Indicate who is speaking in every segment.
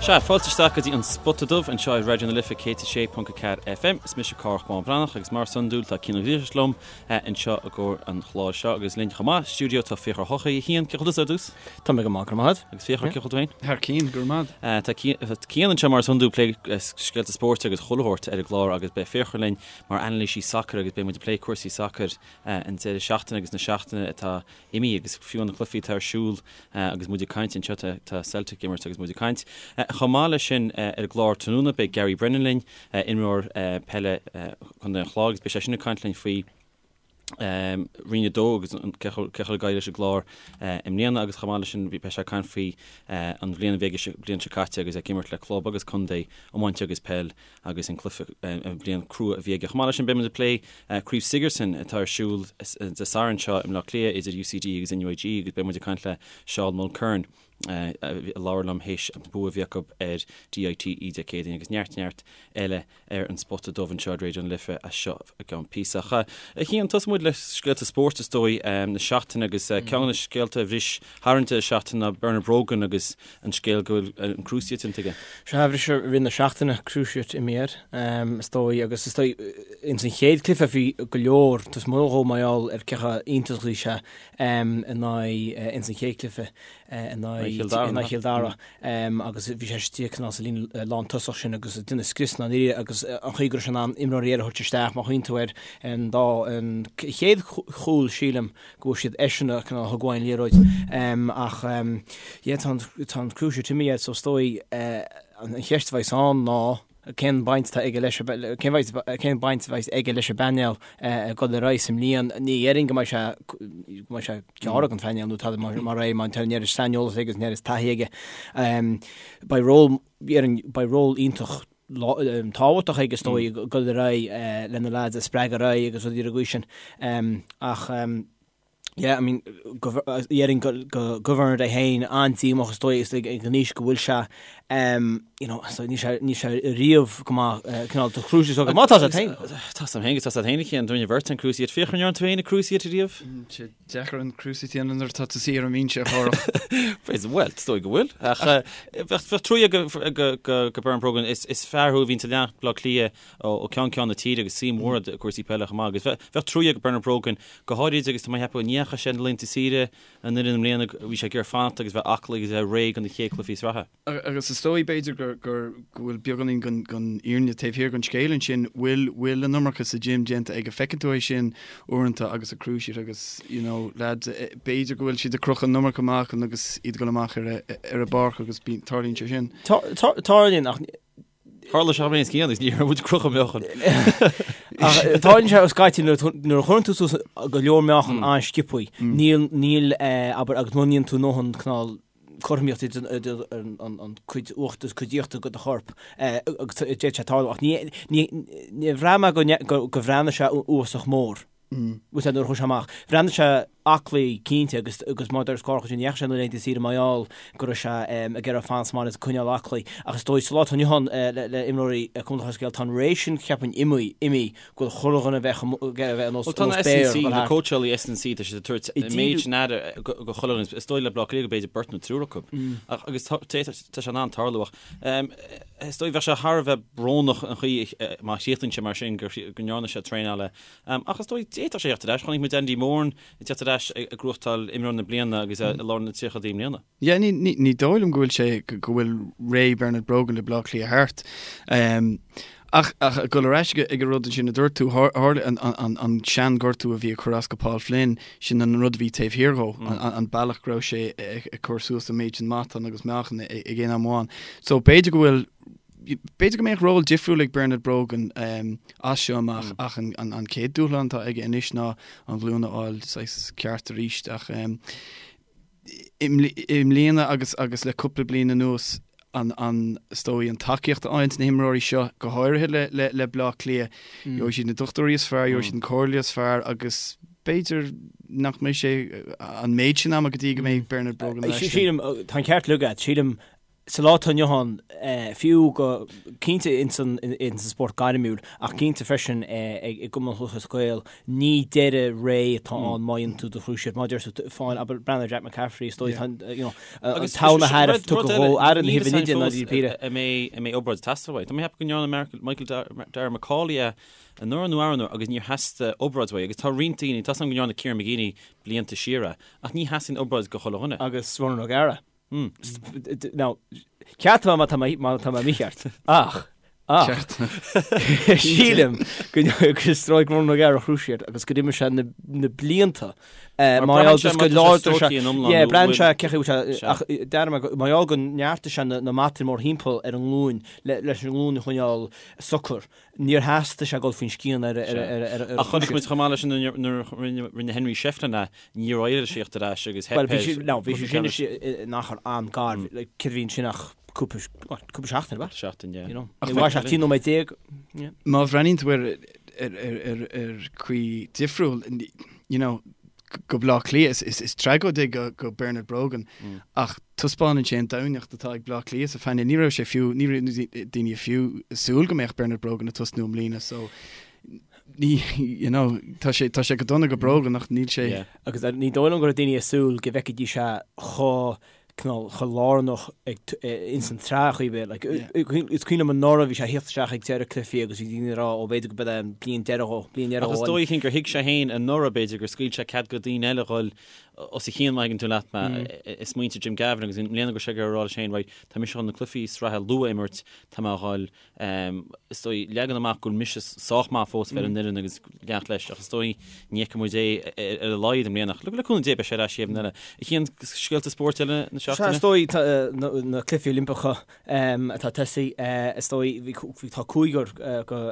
Speaker 1: Sea, fáilte isteach go dtí an Spota Dubh anseo ar Raidió na Life 106.4 FM. Is mise Cárthach Bán Breathnach agus mar is iondúil tá Cian Ó Griallais liom anseo i gcomhair an chláir seo agus linn chomh maith, stiúideo tá Fiachra Ó hEochaidh. A Chian, cén chaoi a bhfuil tusa ar dtús?
Speaker 2: Tá mé go maith, go raibh maith
Speaker 1: agat. Agus Fiachra, cén chaoi a bhfuil tú féin?
Speaker 3: Thar cinn, go raibh maith
Speaker 1: agat. Tá Cian anseo mar is iondúil ag plé scéalta spóirt agus chuile shórt ar an gclár agus beidh Fiachra linn mar anailísí sacair agus beidh muid ag plé cúrsaí sacair an deireadh seachtaine agus na seachtaine atá imithe agus fiú na cluichí atá ar siúl agus muid ag caint anseo, tá Celtic ag imirt agus muid ag caint. Chomh maith leis sin ar an gclár tráthnóna beidh Gary Brennan linn, imreoir peile Chontae an Chláir agus beidh sé sin ag caint linn faoi Roinn 2 agus cé chomh ag éirí leis an gClár i mbliana agus chomh maith leis sin beidh sé ag caint faoi an bhliain a bhí aige an bhliain seo caite agus é ag imirt le club agus contae iomáint agus peil agus an cluiche, an bhliain crua a bhí aige. Chomh maith leis sin, beidh muid ag plé Craobh Sigerson atá ar siúl Dé Sathairn seo i mBleá Cliath idir UCD agus NUIG agus beidh muid ag caint le Seán Mulkerrin a labhair liom théis an bua a bhí acu ar DITE Dé Céadaoin agus neart neart eile ar an Spota Dubh anseo ar Raidió na Life as seo i gceann píosa. Ach a Chian, tosóidh muid le scéalta spóirt is dóigh na seachtaine agus ceann de na scéalta a bhris thar an deireadh seachtaine ná Bernard Brogan agus an scéal go bhfuil an cruciate déanta aige.
Speaker 2: Sea, bhris i rith na seachtaine cruciate imithe air, is dóigh, agus is dóigh, ins an chéad cluiche bhí go leor, tá mo dhó mar gheall ar cé chomh iontach is a bhí sé in aghaidh, ins an chéad cluiche in aghaidh Chill Dara, agus bhí sé istigh cineál sa líne lántosach sin agus ag déanamh scrios na n-iarraidh agus an chaoi go raibh sé in ann imreoirí eile a thabhairt isteach, má chuimhníonn tú ar an dá, an chéad chúl sílim, go bhfuair siad eisean a cineál thug uaidh an liathróid ach yeah tá an tá an cruciate imithe air so is dóigh an cheist a bheas ann ná cén baint atá aige leis cén bhaint cén baint a bheas aige leis an bpainéal ag dul ar aghaidh sa mbliain ní dhéarfainn go mbeidh sé go mbeidh sé gearrtha den phainéal nó tada mar mar é má tá an oiread saineolas aige agus an oiread taithí aige beidh ról dhéarfainn beidh ról iontach tábhachtach aige is dóigh ag dul ar aghaidh le na lads a spreagadh ar aghaidh agus rudaí ar an gcaoi sin. Ach yeah, I mean, dhéarfainn go go Bernard é féin an-díomách is dóigh is ag an aois go bhfuil sé you know, so níl sé níl sé riamh go maith cineál do cruciate so go maith tá sé féin.
Speaker 1: Tá sam féin go tá sé féin cén duine bheirt an cruciate Fiachra an ndearna tú féin an cruciate riamh?
Speaker 3: Deacair an cruciate a dhéanamh nuair atá tú suí ar an mbinse a
Speaker 1: Chárthach. Bhuel, is dóigh go bhfuil. Ach bheadh trua ag go Bernard Brogan, is fear thú a bhíonn ag leanacht Bleá Cliath ó cheann ceann na tíre agus suim mhór i gcúrsaí peile chomh maith. Agus bheadh trua ag Bernard Brogan, go háirid agus tá mé ag ceapadh go ndeachaigh sé na laethanta saoire an fhoireann i mbliana, bhí sé ag iarraidh fanacht agus bheith aclaí agus a bheith réidh do na chéad chluichí sraithe.
Speaker 3: Agus is dóigh, b'fhéidir, gur, gur, go bhfuil beagáinín den, den fhírinne taobh thiar den scéal ansin, bhfuil, bhfuil an iomarca sa gym déanta aige. Feiceann tú é sin uaireanta agus an cruciate agus, you know, lads, b'fhéidir go bhfuil siad ag crochadh an iomarca meáchan agus iad ag dul amach ar a, ar an bpáirc agus bíonn, tarlaíonn sé sin.
Speaker 2: Tarlaíonn ach
Speaker 1: Tharla sé mé scian agus ní raibh muid ag crochadh meáchan.
Speaker 2: Ach tarlaíonn sé scaití nuair nuair a chuireann tú suas go leor meáchan an-sciobthaí, níl, níl, abair, agus mura ndéanann tú a ndóthain cineál cothromaíocht idir an cuid uachtar agus cuid íochtar de do chorp agus d'fhéadfadh sé tarlú ach ní níor bhraith mé go go bhreathnaigh sé uafásach mór bhfuil nuair a chuaigh sé amach. Bhreathnaigh sé aclaí cinnte agus agus mar a deir Cárthach ní dheachaigh sé na laethanta saoire mar gheall go raibh sé ag iarraidh fanacht sa mbaile agus coinneáil aclaí ach is dóigh sa lá atá inniu ann le imreoirí Cumann Lúthchleas Gael tá an ré sin cheapfainn imithe imithe go bhfuil chuile dhuine a bheith ag bheith ar nós
Speaker 1: Bhuel tá na S&C, na cóitseálaí S&C, tá siad ag tabhairt an méid sin aire go chuile dhuine. Is dóigh le Bleá Cliath go b'fhéidir beirt nó triúr acu. Ach agus tá sé in ann tarlú ach is dóigh bheadh sé thar a bheith brónach an chaoi má chríochnaíonn sé mar sin go ndearna sé traenáil ach is dóigh d'fhéadfadh sé theacht ar ais. Chonaic muid Andy Moran ag teacht ar ais ag gnóthachtáil imreoir na bliana agus é i lár na tríochaidí i mbliana.
Speaker 3: Yeah, ní, ní, ní dóigh liom go bhfuil sé, go bhfuil ré Bernard Brogan le Bleá Cliath thart. Um, ach, ach ag dul ar ais ag an rud ansin a dúirt tú, tharla an, an, an, an seanghortú a bhí ag cur as go Paul Flynn, sin an rud a bhí taobh thiar dhó, mm. an, an, an bealach go raibh sé ag, ag cur suas an méid sin matán agus meáchan ag aon am amháin. So b'fhéidir go bhfuil B'fhéidir go mbeadh ról difriúil ag Bernard Brogan um, as seo amach mm. ach an, an, an chéad dúshlán atá aige anois ná an ghlúin a fháil saghas ceart arís ach um, I mbliana agus agus le cúpla bliain anuas an an is dóigh an tacaíocht a fhaigheann na himreoirí seo, go háirithe le le le Bleá Cliath, gheobhaidh siad na dochtúirí is fearr, gheobhaidh siad an comhairle is fearr agus b'fhéidir nach mbeidh sé an méid sin ama go dtí go mbeidh Bernard Brogan ar ais.
Speaker 2: Sílim, tá an ceart agat, sílim. Sa lá atá inniu ann, fiú go cinnte ins an spórt gairmiúil, ach cinnte freisin i gCumann Lúthchleas Gael, ní deireadh ré atá ann má dhéanann tú do chruciate. Mar a deir tú, fáin, abair, breathnaigh ar Jack McCaffrey, is dóigh, tá, you know, an t-am a thairbh tugtha dhó, aire na huimhir nide ná Dí Píre.
Speaker 1: An mbeidh obráid ag teastáil uaidh. Tá mé ag ceapadh go ndearna Michael Darragh MacAuley é anuraidh nó arú anuraidh agus níor theastaigh obráid uaidh agus tá roinnt daoine, tá 's agam go ndearna Kieran McGeeney blianta siar é, ach ní theastaíonn obráid go chuile dhuine.
Speaker 2: Agus Ronan O'Gara. Now, ceartaigh mé má tá mé má tá mé mícheart. Ach, ach, sílim go gur stróic Ronan O'Gara a chruciate agus gur imir sé na na blianta mar gheall just go láidir sé yeah braitheann sé cé chaoi bhfuil sé ach deirim mar gheall go neartaigh sé na na mataí mórthimpeall ar an nglúin le leis an nglúin a choinneáil socair. Níor theastaigh sé dul faoin scian ar ar
Speaker 1: Ach chonaic muid chomh maith leis sin nuair a rinne Henry Shefflin é, níor éirigh leis theacht ar ais agus theip
Speaker 2: air. Bhuel, bhí sé, no, bhí sé sin in achar an-ghar, céard a bhí ansin ach cúpla, cúpla seachtain, ab ea?
Speaker 1: Seachtain, yeah.
Speaker 2: You know, ní mhair sé ach 13 nóiméad.
Speaker 3: Má bhreathnaíonn tú ar ar ar ar chaoi difriúil, you know, go Bleá Cliath, is tragóid é go Bernard Brogan ach taispeánann sé an doimhneacht atá ag Bleá Cliath sa phainéal. Ní raibh sé fiú, ní raibh daoine fiú ag súil go mbeadh Bernard Brogan ag tosnú i mbliana so ní, you know, tá sé, tá sé go dona go Brogan ach níl sé.
Speaker 2: Agus ní dóigh liom go raibh daoine ag súil go bhfeicfidís é chomh cineál chomh lárnach ag ins an tsraith chaoi ar bith. Like, is cuimhin liom anuraidh bhí sé ag theacht isteach ag deireadh cluichí agus bhí daoine ag rá ó b'fhéidir go b'é an bliain deireadh dhó, bliain
Speaker 1: deireadh
Speaker 2: dhó.
Speaker 1: Ach is dóigh gur thuig sé féin anuraidh b'fhéidir gur scaoil sé cead go daoine eile dhul os a chionn má thuigeann tú leat mé i smaointe Jim Gavin agus i mbliana go raibh sé ag rá leis féin right tá mise chun na cluichí sraithe luath a imirt tá mé a dhul Is dóigh, leagan amach go bhfuil mise sách maith fós a bheith ar an bhfoireann agus leanacht leis, ach is dóigh ní fheicfidh muid é ar a laghad i mbliana. Ach le cúnamh Dé beidh sé ar ais an bhliain eile. A Chian, scéalta spóirt eile na
Speaker 2: seachtaine? Sea, is dóigh na Cluichí Oilimpeacha atá ag tosaí, is dóigh tá cúigear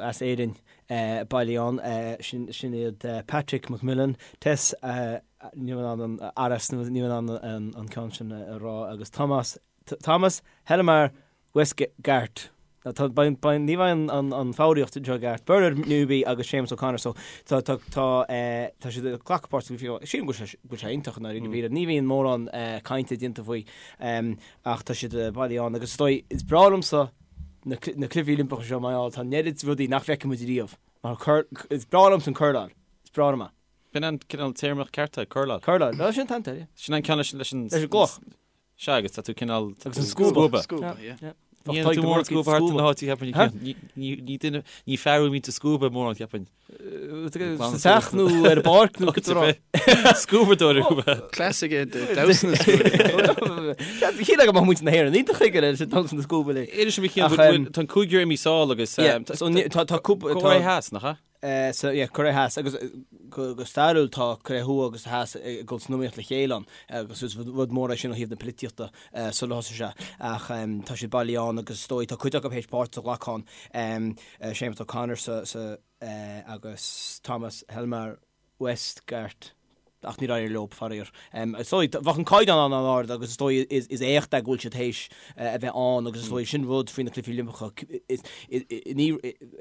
Speaker 2: as Éirinn bailithe ann, sin iad Patrick McMillan, Tess, níl mé in ann an Aras, níl mé in ann an ceann sin a rá, agus Thomas, Thomas Helmar Westgarth. Tá, ní bheidh an foghraíocht anseo i gceart. Bernard Newby agus Séamus O'Connor so tá tá tá tá siad ag glacadh páirt sa gcluiche. Sílim go bhfuil sé iontach i ndáiríre píre. Ní bhíonn mórán cainte déanta faoi ach tá siad bailithe ann agus is dóigh is breá liomsa na na cluichí Oilimpeacha seo mar gheall tá an oiread rudaí nach bhfeicfidh muid riamh. Mar cur is breá liomsa an curláil. Is breá liom é.
Speaker 1: B'in an cineál téarma ceart é,
Speaker 2: curláil. Curláil, sin an t-ainm, yeah.
Speaker 1: Sin an ceann leis leis
Speaker 2: an leis an gcloch.
Speaker 1: Sea, agus tá tú cineál...
Speaker 2: Agus an scuaba.
Speaker 3: Scuaba, yeah.
Speaker 1: Ní dhéanann tú mórán scuaba thart na háite, cheapfainn. Ní duine, ní fear a mbíonn tú scuaba mórán,
Speaker 2: cheapfainn. Sa teach nó ar an bpáirc nó cad rá.
Speaker 1: Scuabadóir thú.
Speaker 3: Cleas aige damhsa na scuaba.
Speaker 2: Shíl go mbeadh muintir na hÉireann iontach chuige leis an damhsa na scuaba
Speaker 1: le. Inis dom a Chian, tá an cúigear imithe sall agus...
Speaker 2: Tá
Speaker 1: cúpla... Cóiré Theas, nach
Speaker 2: ea? So yeah, Cóiré Theas agus go stairiúil tá Cóiré Thuaidh agus Theas ag dul san iomaíocht le chéile ann agus is rud mór é sin ó thaobh na polaitíochta sular thosaigh sé ach tá siad bailithe ann agus is dóigh tá cuid acu théis páirt a ghlacadh ann, Séamus O'Connor sa sa agus Thomas Helmar Westgarth. ach níor éirigh leo, faraor. Is dóigh, bheadh an caighdeán an-ard agus is dóigh is éacht é go bhfuil siad théis a bheith ann agus is dóigh sin rud faoi na Cluichí Oilimpeacha, ní,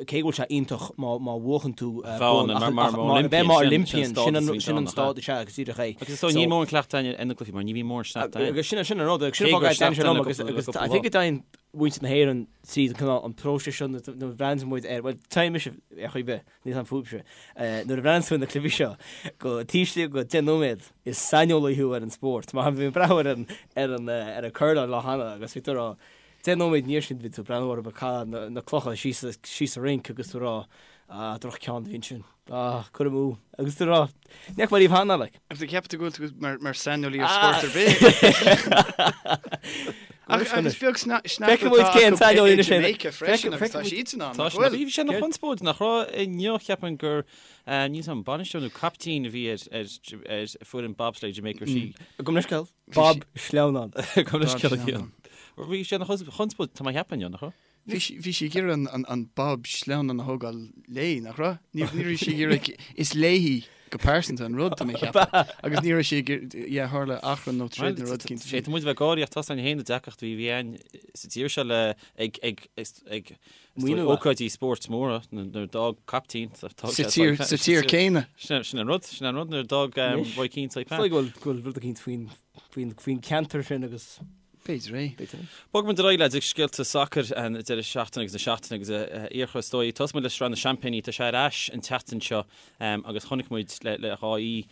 Speaker 2: cé go bhfuil sé iontach má má bhuachann tú
Speaker 1: bonn ach mar
Speaker 2: bheith mar Olympian, sin an sin an stádas sea agus
Speaker 1: díreach é. Agus is dóigh níl mórán cleachtadh ar na cluichí mar ní bhíonn mórán sneachta
Speaker 2: ann. Agus sin sin an rud agus sin an fáth go dtaitníonn sé liom agus agus I think go dtéann muintir na hÉireann tríd an cineál an próiseas seo nuair a bhreathnaíonn muid air, bhuel téann mise ar chaoi ar bith. Níl 'fhios a'm fúibhse. Nuair a bhreathnaíonn tú ar na cluichí seo, go taobh istigh de 10 nóiméad, is saineolaí thú ar an spórt. Mar bhí mé ag breathnú ar an ar an ar an curláil lá cheana agus bhí tú ag rá, 10 nóiméad ina dhiaidh sin bhí tú ag breathnú orthu ag caitheamh na clocha síos síos sa rinc agus tú ag rá, ah, droch-cheann a bhí ansin. Ah, cur amú. Agus tú ag rá, ní fhaca mé riamh cheana, like.
Speaker 3: Agus an gceapann tú go bhfuil tú mar mar saineolaí ar spórt ar bith? Ach agus beag sneachta
Speaker 2: Feicfidh muid cén
Speaker 3: saineolaí anois é. Jamaica freisin agus tá siadsan ann,
Speaker 1: nach bhfuil? Bhí sé ina chonspóid nach raibh inniu cheapfainn gur níl 'fhios a'm bainisteoir nó caiptín a bhí ar ar foireann bobsleigh Jamaica sí.
Speaker 2: Gabh mo leithscéal. Bob Sleamhnán.
Speaker 1: Gabh mo leithscéal. Bhí sé ina chonspóid tá mé a cheapadh inniu nach
Speaker 3: raibh? Bhí sí ag iarraidh an bob sleamhnán a thógáil léi, nach raibh? Ní raibh sí ag iarraidh, is léi go pearsanta an rud, tá mé a cheapadh. Agus ní raibh sí ag iarraidh, yeah, tharla achrann nó troid nó rud
Speaker 1: éicint. Féadfaidh muid a bheith ag gáirí ach tá againn féin na deacrachtaí a bhí againn sa tír seo le ag ag ag ócáidí spóirt móra nuair a d'fhág caiptín
Speaker 3: sa tír céanna.
Speaker 1: Sin an rud, sin an rud nuair a d'fhág Roy Keane
Speaker 2: Saipan. Is dóigh go bhfuil rud éicint faoin ceantar sin agus.
Speaker 3: B'fhéidir é.
Speaker 2: B'fhéidir é.
Speaker 1: Bogfaidh muid ar aghaidh leis ag scéalta sacair an deireadh seachtaine agus na seachtaine agus a Fhiachra is dóigh. Tosóidh muid le Sraith na Seaimpíní. Tá sé ar ais an tseachtain seo agus chonaic muid le dhá oíche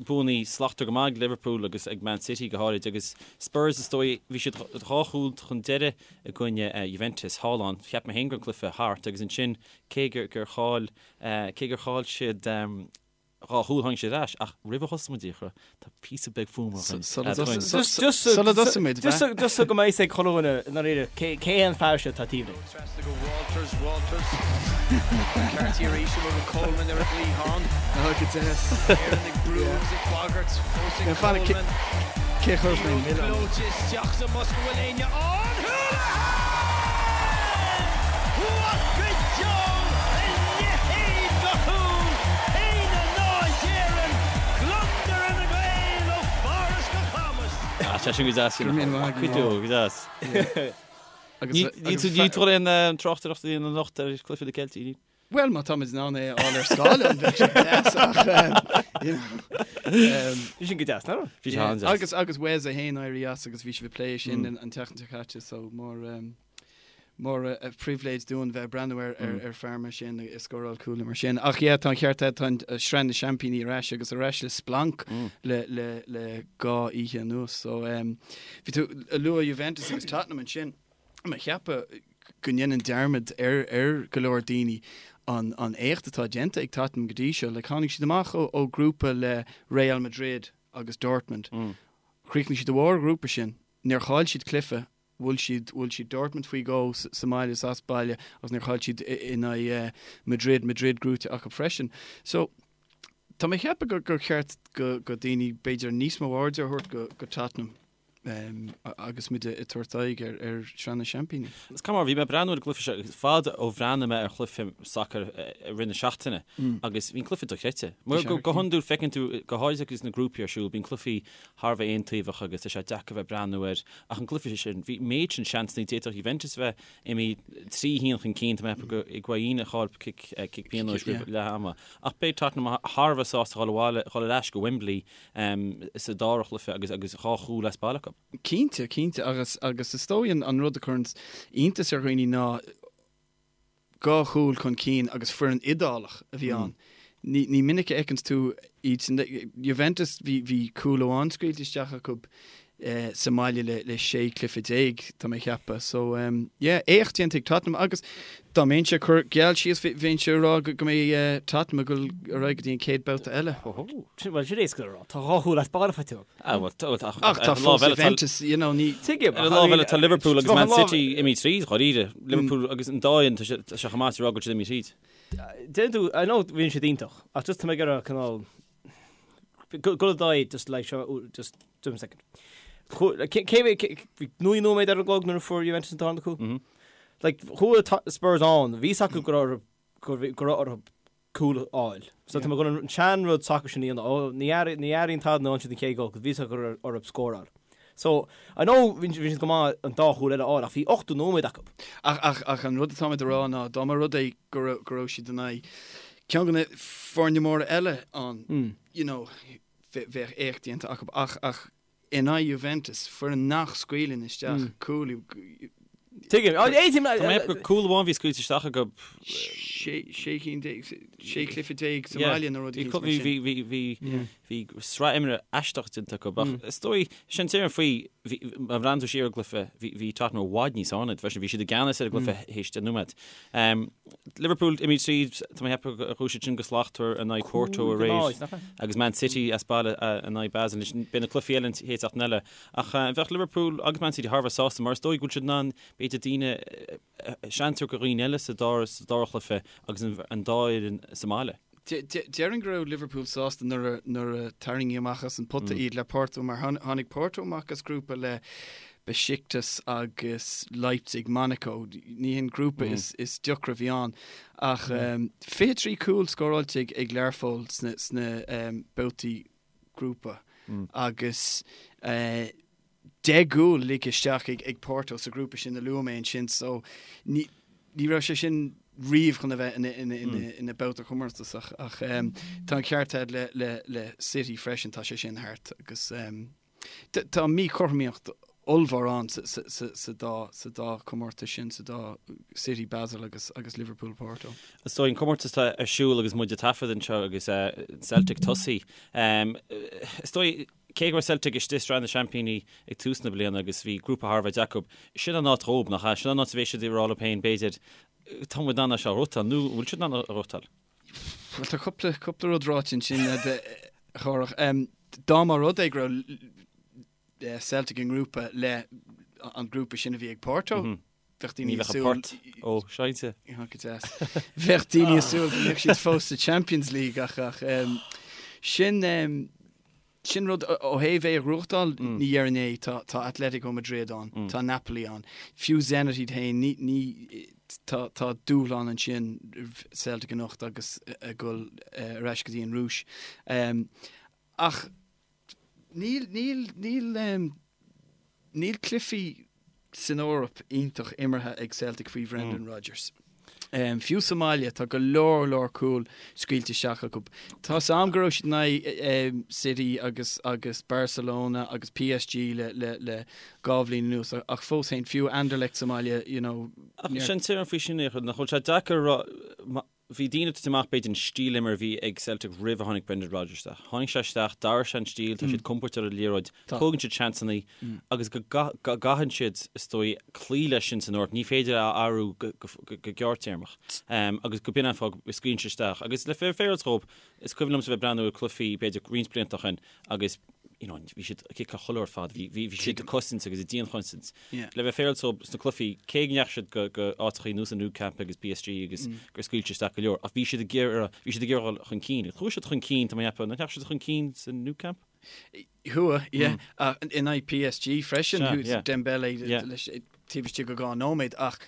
Speaker 1: buanna slachtmhar go maith ag Liverpool agus ag Man City go háirid agus Spurs is dóigh bhí siad dhá chúl chun deiridh i gcoinne Juventus thall ann. Cheap mé féin go raibh an cluiche thart agus ansin cé gur chaill cé gur chaill siad Dhá chúl tháinig siad ar ais, ach roimh a thosaigh muid, a Fhiachra, tá píosa beag fuaime againn.
Speaker 3: Sula dtosaigh muid,
Speaker 2: Just so go mbeidh fhios ag chuile dhuine i ndáiríre cé hé an fear seo atá taobh linn.
Speaker 4: Trasna go Walters, Walters. McCarthy arís amuigh go Coleman ar an gcliathán.
Speaker 3: Ó, go deas.
Speaker 4: Éireann ag brú agus ag bagairt fós ag
Speaker 3: Now, fan,
Speaker 4: Coleman.
Speaker 3: cé chuirfeadh mé
Speaker 4: Liathróid
Speaker 3: milleán?
Speaker 4: gleoite isteach sa mbosca bhfuil éinne ann? Houlihan! What go deo a leithéid de chúl! 1-0 d'Éirinn, gliondar ar na Gaeil ó Pháras go Camas!
Speaker 1: Ah, tá sin go deas.
Speaker 3: Go raibh míle maith
Speaker 1: Go
Speaker 3: agat.
Speaker 1: deo, go deas.
Speaker 3: Agus
Speaker 1: Ní tú ní tú aon tráchtaireacht a dhéanamh anocht ar chluiche na gCeiltigh, ní?
Speaker 3: Bhuel, má táimid in ann é a fháil ar scáileán, bheadh sé deas ach, you know.
Speaker 2: Bhí sin go deas, nach raibh?
Speaker 1: Bhí sé an-deas.
Speaker 3: Agus, agus Wes é féin éirí as agus bhí sibh ag plé sin an tseachtain seo caite, so mór, mór an pribhléid dúinn bheith ag breathnú ar, ar, ar fear mar sin ag scóráil cúil mar sin. Ach yeah, tá an ceart agat, tá an Sraith na Seaimpíní ar ais agus ar ais le splanc le, le, le dhá oíche anuas. So, bhí tú ag lua Juventus agus Tottenham ansin. Mé ag ceapadh go ndéanann dearmad ar ar go leor daoine an an éacht atá déanta ag Tottenham go dtí seo. Like tháinig siad amach ó ó grúpa le Real Madrid agus Dortmund. Chríochnaigh siad i mbarr an ghrúpa sin. Níor chaill siad cluiche. Bhuail siad bhuail siad Dortmund faoi dhó sa mbaile is as baile agus níor chaill siad in aghaidh Madrid, Madrid gnóite acu freisin. So tá mé ag ceapadh gur gur cheart go go daoine b'fhéidir níos mó airde a thabhairt go go Tottenham. agus muid ag tabhairt aghaidh ar Shraith na Seaimpíní.
Speaker 1: Is cuma, bhí mé ag breathnú ar an gcluiche seo agus fada ó bhreathnaigh mé ar chluiche sacair i rith na seachtaine agus bhí an cluiche dochreidte. Mar go hiondúil feiceann tú, go háirithe agus na grúpaí ar siúl, bíonn cluichí thar a bheith aontaobhach agus tá sé deacair bheith ag breathnú air ach an cluiche sin, bhí méid sin seansanna, d'fhéadfadh Juventus a bheith imithe 3-1 chun cinn, tá mé ag ceapadh gur Higuaín a chaill cic pionóis roimh leath ama. Ach beidh Tottenham thar a bheith sásta dhul abhaile, dhul ar ais go Wembley sa dara chluiche agus agus dhá chúl as baile acu.
Speaker 3: Cinnte, cinnte agus agus is dóigh an rud a chuireann iontas ar dhaoine ná dhá chúl chun cinn agus foireann Iodálach a bhí ann. Ní ní minic a fheiceanns tú iad sin. Juventus bhí bhí cúl amháin scaoilte isteach acu sa mbaile le le 16 cluiche, tá mé ag ceapadh. So yeah, éacht déanta ag Tottenham agus dá mbeinnse ag cur geall síos bheinnse ag rá go mbeidh Tottenham ag dul ar aghaidh go dtí an chéad babhta eile.
Speaker 2: Bhuel, sin éasca le rá. Tá dhá chúl as baile faighte acu.
Speaker 1: Ah, bhuel, tá,
Speaker 3: Ach tá fós Juventus, you know, ní.
Speaker 2: Tuigim,
Speaker 1: Ar an lámh eile tá Liverpool agus Man City imithe tríd, dháiríre. Liverpool agus an dá fhoireann, tá sé tá sé chomh maith is a rá go bhfuil siad imithe tríd.
Speaker 2: Déanann tú, I know bhíonn siad iontach, ach just tá mé ag iarraidh cineál Go do just like seo just give me a second. Cé bhí 9 nóiméad ar an gclog nuair a fuair Juventus an tarna cúl? Like chuaigh Spurs ann, bhí fhios acu go raibh go raibh orthu cúl a fháil. So tá mé chun an sean-rud sacair sin a dhéanamh. Ó ní ní airíonn tada nuair a fhaigheann siad an chéad ghol, 'cause bhí fhios acu go raibh orthu scóráil. So I know bhí siad go maith an dá chúl eile a fháil ach bhí 80 nóiméad acu.
Speaker 3: Ach ach ach an rud atáimid a rá ná dá mba rud é go raibh go raibh siad in aghaidh ceann de na foirne móra eile ann, you know, bheadh éacht déanta acu ach ach in aghaidh Juventus, foireann nach scaoileann isteach cúil,
Speaker 2: Tuigim. Tá
Speaker 1: mé ag ceapadh gur cúl amháin a bhí scaoilte isteach acu.
Speaker 3: Sé cinn déag, sé chluiche déag sa mbaile nó rud
Speaker 1: eicínt mar sin. Bhí, bhí sraith imeartha aisteach déanta acu ach is dóigh, sin déarfainn faoi, bhí, má bhreathnaíonn tú siar ar an gcluiche, bhí, bhí Tottenham i bhfad níos fearr ná iad freisin, bhí siad i gceannas ar an gcluiche théis 10 nóiméad. Liverpool imithe tríd, tá mé ag ceapadh gur chuaigh siad sin go slachtmhar in aghaidh Porto aréir agus Man City as baile in aghaidh Basel. Anois beidh na cluichí eile an chéad seachtain eile. Ach bheadh Liverpool agus Man City thar a bheith sásta mar is dóigh go bhfuil siad in ann b'fhéidir daoine seans a thabhairt do dhaoine eile sa dara sa dara chluiche agus an dá fhoireann sa mbaile.
Speaker 3: Déarfainn go raibh Liverpool sásta nuair a nuair a tarraingíodh amach as an pota iad le Porto mar tháinig Porto amach as grúpa le Besiktas agus Leipzig, Monaco. Ní hin grúpa is is deacra a bhí ann ach 23 cúl scóráilte ag Learpholl sna sna babhtaí grúpa agus 10 gcúl ligthe isteach ag Porto sa ghrúpa sin a luaigh mé ansin so ní raibh sé sin riamh chun a bheith ina babhta comórtasach ach tá an ceart agat le City freisin, tá sé sin thart agus tá míchothromaíocht. ollmhór ann sa dá chomórtas sin, sa dá City Basel agus agus Liverpool Porto.
Speaker 1: Is dóigh an comórtas atá ar siúl agus muid ag taifead anseo agus Celtic tosaithe. Is dóigh cé go raibh Celtic istigh i Sraith na Seaimpíní ag tús na bliana agus bhí grúpa thar a bheith deacair, sin an áit dhóibh, nach ea? Sin an áit a bheidh siad ag rá leo féin, b'fhéidir, tá muid in ann é seo a ghnóthachtáil, nó an bhfuil siad in ann a ghnóthachtáil?
Speaker 3: Bhuel, tá cúpla, cúpla rud ráite ansin, a Chárthach. Dá mba rud é go raibh Celtic i ngrúpa le an grúpa sin a bhí ag Porto, bheadh daoine
Speaker 1: ag súil... Ní bheadh an port ó seinnte.
Speaker 3: Go deas. Bheadh daoine ag súil go mbeadh siad fós sa Champions League ach ach sin sin rud ó thaobh é a ghnóthachtáil, ní dhéarfainn é, tá tá Atletico Madrid ann, tá Napoli ann, fiú Zenit iad féin, ní ní tá tá dúshlán ansin Celtic anocht agus ag dul ar ais go dtí an Rúis. Ach níl, níl, níl, níl cluichí san Eoraip iontach imeartha ag Celtic faoi Bhrendan Rodgers. Fiú sa mbaile, tá go leor, leor cúl scaoilte isteach acu. Tá 's a'm go raibh siad in aghaidh City agus agus Barcelona agus PSG le le le dhá bhliain anuas ach fós féin, fiú Anderlecht sa mbaile, you know,
Speaker 1: Ach sin tuairim faoi sin, nach bhfuil sé deacair a rá, Bhí daoine ag titim amach, b'fhéidir, an stíl imeartha a bhí ag Celtic roimh a tháinig Brendan Rodgers isteach. Tháinig sé isteach, d'athraigh sé an stíl, tá siad compordach ar an liathróid, tógann siad seansanna agus go gcaitheann siad, is dóigh, cloí leis sin san Eoraip. Ní féidir é a athrú go gearrtéarmach agus go b'in an fáth go scaoileann siad isteach. Agus le féaráil dhóibh, is cuimhin liomsa bheith ag breathnú ar cluichí, b'fhéidir, roinnt blianta ó shin agus you know, bhí siad ag ciceáil chuile ar fad, bhí, bhí, bhí siad ag cosaint agus ag dianchosaint. Yeah. Le bheith féaráilte dóibh sna cluichí, cé go ndeachaigh siad go, go áiteachaí ar nós an Nou Camp agus PSG agus mm. gur scaoil siad isteach go leor, ach bhí siad ag iarraidh, bhí siad ag iarraidh dul chun cinn. Chuaigh siad chun cinn, tá mé ag ceapadh, nach ndeachaigh siad chun cinn sa Nou Camp?
Speaker 3: Chuaigh, yeah. Mm. Uh, in aghaidh PSG freisin, yeah, yeah. Dembele yeah. leis, taobh istigh de dhá nóiméad ach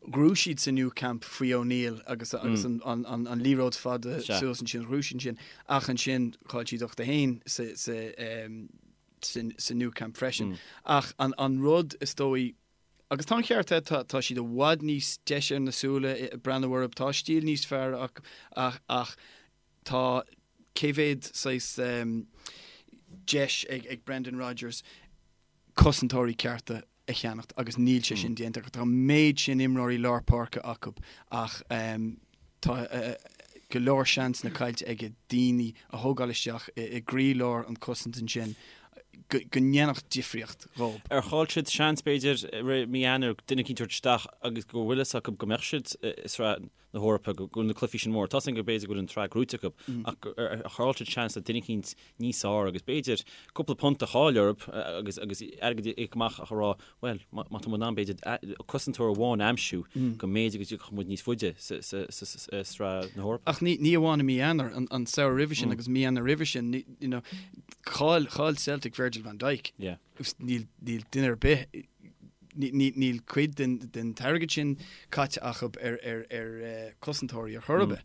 Speaker 3: ghnóthaigh siad sa Nou Camp faoi O'Neill agus agus an an an an liathróid fada suas ansin ghnóthaigh siad ansin ach ansin chaill siad 8-1 sa sa sa sa Nou Camp freisin. Ach an an rud is dóigh agus tá an ceart agat tá tá siad i bhfad níos deise ar na súile breathnú orthu tá stíl níos fearr ach ach ach tá cé mhéad saghas deis ag ag Brendan Rodgers cosantóirí cearta a cheannacht agus níl sé sin déanta acu. Tá an méid sin imreoirí lár páirce acu ach tá go leor seansanna caillte aige daoine a thógáil isteach i gcroílár an cosaint ansin go ndéanfadh difríocht dhóibh.
Speaker 1: Ar chaill siad seans, b'fhéidir, i rith mí Eanáir duine eicínt a thabhairt isteach agus go bhfuil fhios acu go mbeadh siad i sraith na hEorpa, go bhfuil na cluichí sin mór. Tá 's againn go b'fhéidir go bhfuil an tsraith gnóite acu ach ar chaill siad seans le duine eicínt níos fearr agus b'fhéidir cúpla punt a chaill orthu agus agus airgead a íoc amach ach a rá bhuel má tá muid in ann b'fhéidir cosantóir amháin a aimsiú go mb'fhéidir go dtiocfadh muid níos faide sa sraith na hEorpa.
Speaker 3: Ach ní ní amháin i mí Eanáir, an an samhradh roimhe sin agus mí Eanáir roimhe sin, you know, chaill chaill Celtic Virgil van Dijk.
Speaker 1: Yeah.
Speaker 3: Níl níl duine ar bith níl cuid den den t-airgead sin caite acu ar ar ar cosantóirí ar chor ar bith.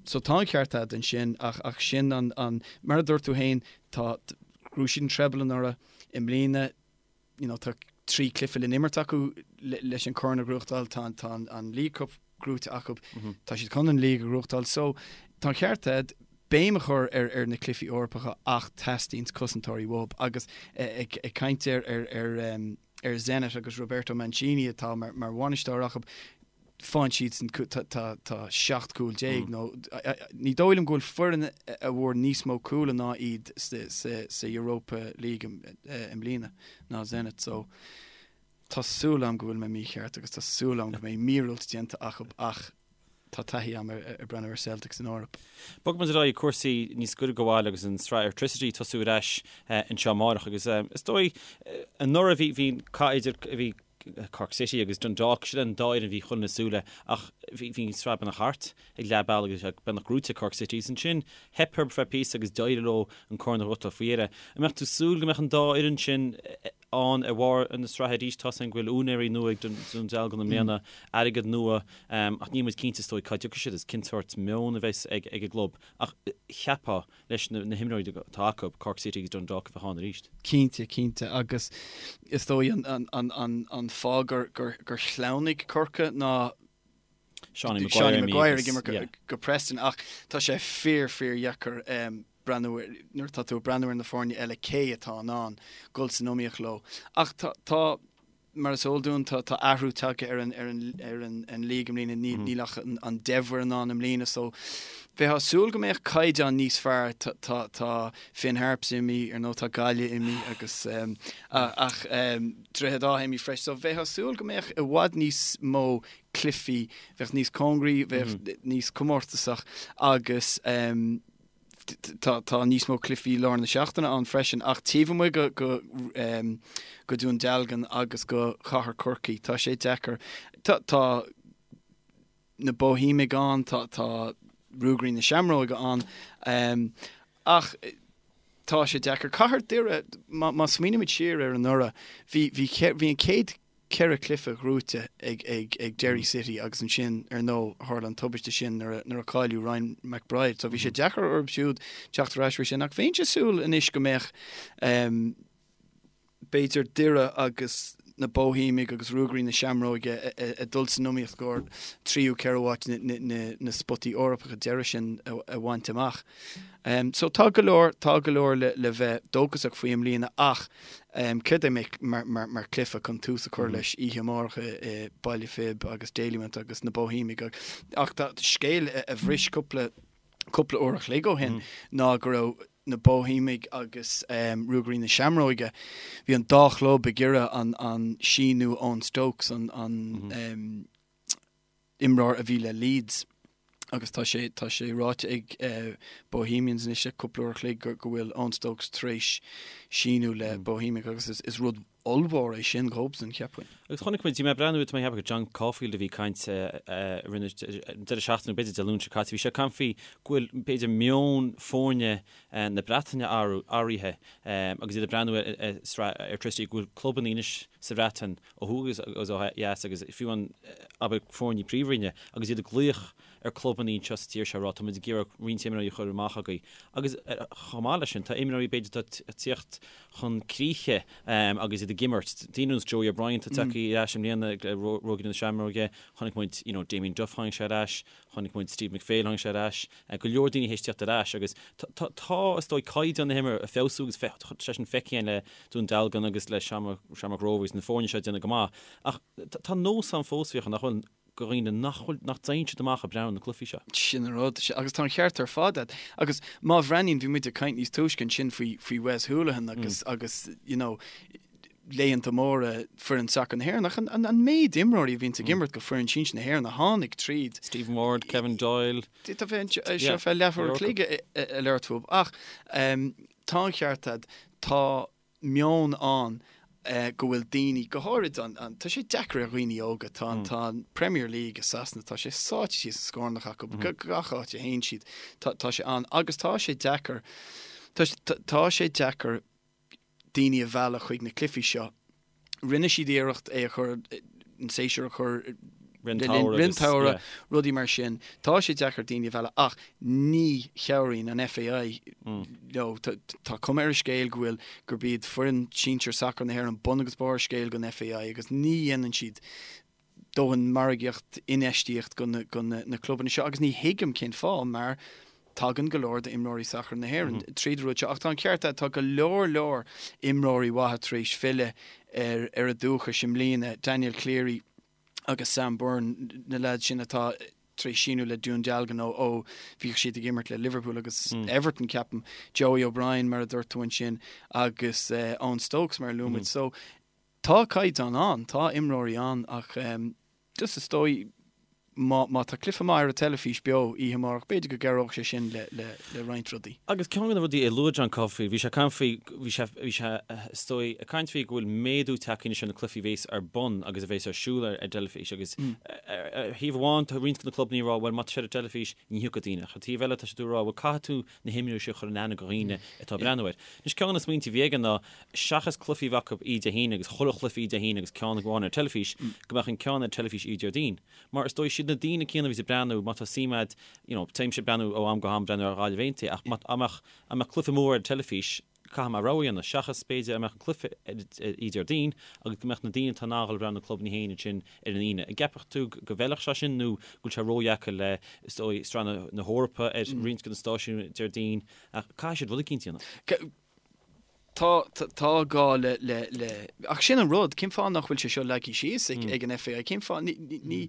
Speaker 3: So tá an ceart agat ansin ach ach sin an an mar a dúirt tú féin tá ghnóthaigh siad an treble anuraidh i mbliana you know tá 3 cluiche le n-imirt acu leis an corn a ghnóthachtáil tá tá an League Cup gnóite acu tá siad chun an League a ghnóthachtáil so tá an ceart agat béim a chur ar ar na cluichí Eorpacha ach teastaíonn cosantóirí uathu agus ag ag caint ar ar ar ar Zenit agus Roberto Mancini atá mar mar bhainisteoir acu faigheann siadsan tá tá tá 17 cúl nó ní dóigh liom go bhfuil foireann a bhfuair níos mó cúl ná iad sa sa sa Europa League i mbliana ná Zenit so Tá súil agam go bhfuil mé mícheart agus tá súil agam go mbeidh míorúilt déanta acu ach tá taithí agam ar breathnú ar Celtic san Eoraip.
Speaker 1: Bogfaidh muid ar aghaidh cúrsaí níos gaire do bhaile agus an tsraith Airtricity ag tosú ar ais anseo amárach agus is dóigh anuraidh bhí bhí cath idir bhí Cork City agus Dundalk, sin an dá fhoireann a bhí chun na súile ach bhí bhí an tsraith beagnach thart ag leath bealaigh agus beagnach gnóite ag Cork City agus ansin theip orthu feadh píosa agus d'éirigh leo an corn a ghnóthachtáil faoi dheireadh. An mbeadh tú ag súil go mbeadh an dá fhoireann sin ann ar bharr na sraithe arís. Tá 's againn go bhfuil úinéirí nua ag Dún Dealgan i mbliana, airgead nua, ach níl muid cinnte is dóigh cá dtiocfaidh siad is cén sórt meon a bheas ag an gclub. Ach cheapfá, leis na himreoirí atá acu, Cork City agus Dundalk a bheith ann arís.
Speaker 3: Cinnte, cinnte. Agus is dóigh an fáth gur shleamhnaigh Corcaigh ná
Speaker 1: Seánie Maguire
Speaker 3: ag imirt go Preston ach tá sé fíor, fíor dheacair. breathnú ar, nuair atá tú ag breathnú ar na foirne eile cé atá in ann dul san iomaíocht leo. Ach tá, tá, mar is eol dúinn, tá, tá athrú tagtha ar an, ar an, ar an, an league i mbliana, níl, níl ach an, an 10 bhfoireann ann i mbliana so bheifeá ag súil go mbeadh caighdeán níos fearr, tá, tá, tá Finn Harps imithe, ar ndóigh tá Gaillimh imithe agus ach Droichead Átha imithe freisin so bheifeá ag súil go mbeadh i bhfad níos mó cluichí, bheadh níos cóngaraí, bheadh níos comórtasach agus tá tá níos mó cluichí lár na seachtaine ann freisin ach taobh amuigh go go go Dún Dealgan agus go Chathair Chorcaí tá sé deacair. Tá tá na Boihéimigh ann, tá tá Ruagairí na Seamróige ann ach tá sé deacair. Cathair Doire, má má smaoinímid siar ar anuraidh, bhí bhí bhí an chéad cheithre chluiche gnóite ag ag ag Derry City agus ansin ar ndóigh tharla an tubaiste sin nuair a nuair a cailleadh Ryan McBride so bhí sé deacair orthu siúd teacht ar ais faoi sin ach bheinnse ag súil anois go mbeadh b'fhéidir Doire agus na Boihéimigh agus Ruagairí na Seamróige ag dul san iomaíocht i gcomhair tríú ceathrú háit na spotaí Eorpacha deiridh sin a bhaint amach. So tá go leor, tá go leor le bheith dóchasach faoi i mbliana ach céard é mar chluiche chun tús a chur leis oíche amárach i Baile Phib agus Dalymount agus na Boihéimigh ach tá scéal a bhris cúpla cúpla uair a chloig ó shin ná go raibh na Boihéimigh agus Ruagairí na Seamróige, bhí an dá chlub ag iarraidh an an síniú Eoin Stokes, an an imreoir a bhí le Leeds agus tá sé tá sé ráite ag Bohemians anois le cúpla uair a chloig go go bhfuil Eoin Stokes tar éis síniú le Bohemians agus is is rud ollmhór é sin dhóibhsan, cheapfainn.
Speaker 1: Agus chonaic muid, bhí mé ag breathnú, tá mé ag ceapadh gur John Caulfield a bhí ag caint roimh an deireadh seachtaine, b'fhéidir Dé Luain seo caite, bhí sé ag caint faoi go bhfuil b'fhéidir meon foirne na Breataine athraithe agus iad ag breathnú ar sraith Airtricity, go bhfuil clubanna anois sa Bhreatain ó thuaidh agus ó dheas agus fiú an abair foirne príomhroinne agus iad ag glaoch ar clubanna anseo sa tír seo ag rá tá muid ag iarraidh roinnt imreoirí a chur amach agaibh agus chomh maith leis sin tá imreoirí b'fhéidir atá ag tíocht chun críche agus iad ag imirt. Daoine ar nós Joey O'Brien atá tagtha ar ais i mbliana le Ruagairí na Seamróige, chonaic muid you know Damien Duff tháinig sé ar ais, chonaic muid Steve McPhail tháinig sé ar ais, go leor daoine théis tíocht ar ais agus tá tá is dóigh caighdeán na himeartha ag feabhsú agus tá sé sin feicthe againn le Dún Dealgan agus le Shamrock Rovers na foirne seo ag déanamh go maith ach tá nós ann fós Fiachra nach bhfuil do dhaoine nach bhfuil, nach dtéann siad amach ag breathnú ar na cluichí seo.
Speaker 3: Sin an rud. Agus tá an ceart ar fad agat. Agus má bhreathnaíonn, bhí muid ag caint níos túisce ansin faoi, faoi Wes Hoolahan agus, agus, you know, laethanta móra foireann sacair na hÉireann. Ach an, an, an méid imreoirí a bhíonns ag imirt go foireann sinsir na hÉireann a tháinig tríd.
Speaker 1: Stephen Ward, Kevin Doyle.
Speaker 3: Tá bheith seo feadh leathuair a chloig ag labhairt fúthu. Ach tá an ceart agat, tá meon ann go bhfuil daoine, go háirid an, an, tá sé deacair ar dhaoine óga, tá an, tá an Premier League i Sasana, tá sé sáite síos sa scornach acu, gach áit a théann siad, tá, tá sé ann agus tá sé deacair, tá, tá sé deacair daoine a mhealladh chuig na cluichí seo. Rinne siad iarracht é a chur, an séasúr a chur
Speaker 1: le linn
Speaker 3: an tsamhraidh, rudaí mar sin. Tá sé deacair daoine a mhealladh ach ní chabhraíonn an FAI leo. Tá cuma ar an scéal go bhfuil, gurb iad foireann sinsir sacair na hÉireann bun agus barr scéil don FAI agus ní dhéanann siad dóthain margaíocht, infheistíocht go na clubanna seo agus ní thuigim cén fáth mar tagann go leor d'imreoirí sacair na hÉireann tríd an rud seo ach tá an ceart agat, tá go leor leor imreoirí mhaithe tar éis filleadh ar ar a dúchais i mbliana, Daniel Cleary agus Sam Byrne, na leaids sin atá tar éis síniú le Dún Dealgan ó ó bhíodh siad ag imirt le Liverpool agus Everton ceapaim, Joey O'Brien mar a dúirt tú ansin agus Eoin Stokes mar a luaigh muid. So Tá caighdeán ann, tá imreoirí ann ach just is dóigh má má tá cluiche maith ar an teilifís beo oíche amárach, b'fhéidir go gcabhródh sé sin le le le roinnt rudaí.
Speaker 1: Agus ceann de na rudaí a luaigh John Caulfield, bhí sé ag caint faoi, bhí sé, bhí sé is dóigh ag caint faoi go bhfuil méadú tagtha anois ar na cluichí a bhéas ar bun agus a bhéas ar siúl ar an dteilifís agus ar thaobh amháin tá roinnt de na clubanna ag rá bhuel má tá sé ar an dteilifís ní thiocfaidh daoine ach ar taobh eile tá siad ag rá bhuel caithfidh tú na himreoirí seo a chur in aithne do dhaoine atá ag breathnú air. Anois ceann de na smaointe a bhí aige ná seachas cluichí a bheith acu oíche Dé hAoine agus chuile chluiche oíche Dé hAoine agus ceann amháin ar teilifís, go mbeadh an ceann ar teilifís oíche Déardaoin. Mar is dóigh, siad na daoine céanna a bhíos ag breathnú, má tá suim agat, you know, téimse ag breathnú ó am go ham breathnú ar Ghaillimh Aontaithe ach má, dá mbeadh, dá mbeadh cluiche mór ar teilifís, Caithfidh mé rogha a dhéanamh, seachas b'fhéidir a mbeadh an cluiche oíche Déardaoin agus go mbeadh na daoine atá in ann a dhul ag breathnú na clubanna féin ansin ar an Aoine. An gceapfadh tú go bhfeilfeadh sé sin nó go bhfuil sé ródheacair le, is dóigh, Sraith na hEorpa ar roinnt de na stáisiúin Déardaoin ach caithfidh siad rud eicínt a dhéanamh.
Speaker 3: Tá, tá gá le, le, le, ach sin an rud, cén fáth nach bhfuil sé seo leagtha síos ag, ag an FAI? Cén fáth, ní, ní, ní,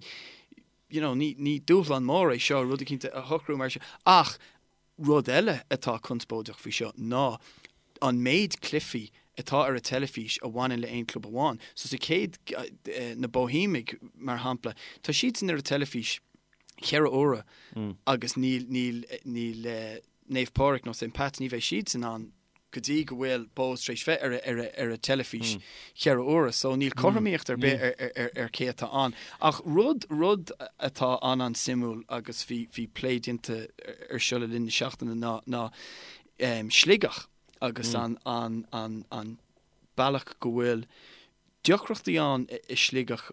Speaker 3: you know, ní, ní dúshlán mór é seo rud eicínt a shocrú mar seo ach Rud eile atá conspóideach faoi seo ná an méid cluichí atá ar an teilifís a bhaineann le aon club amháin. So sa chéad, na Boihéimigh mar shampla, tá siadsan ar an teilifís cheithre huaire agus níl, níl, níl Naomh Pádraig nó St Pat's, ní bheidh siadsan ann go dtí go bhfuil Bohs tar éis bheith ar ar ar an teilifís cheithre huaire so níl cothromaíocht ar bith ar ar ar cé atá ann. Ach rud rud atá an-an-suimiúil agus bhí bhí plé déanta ar seo le linn na seachtaine ná ná Sligeach agus an an an an bealach go bhfuil deacrachtaí ann i Sligeach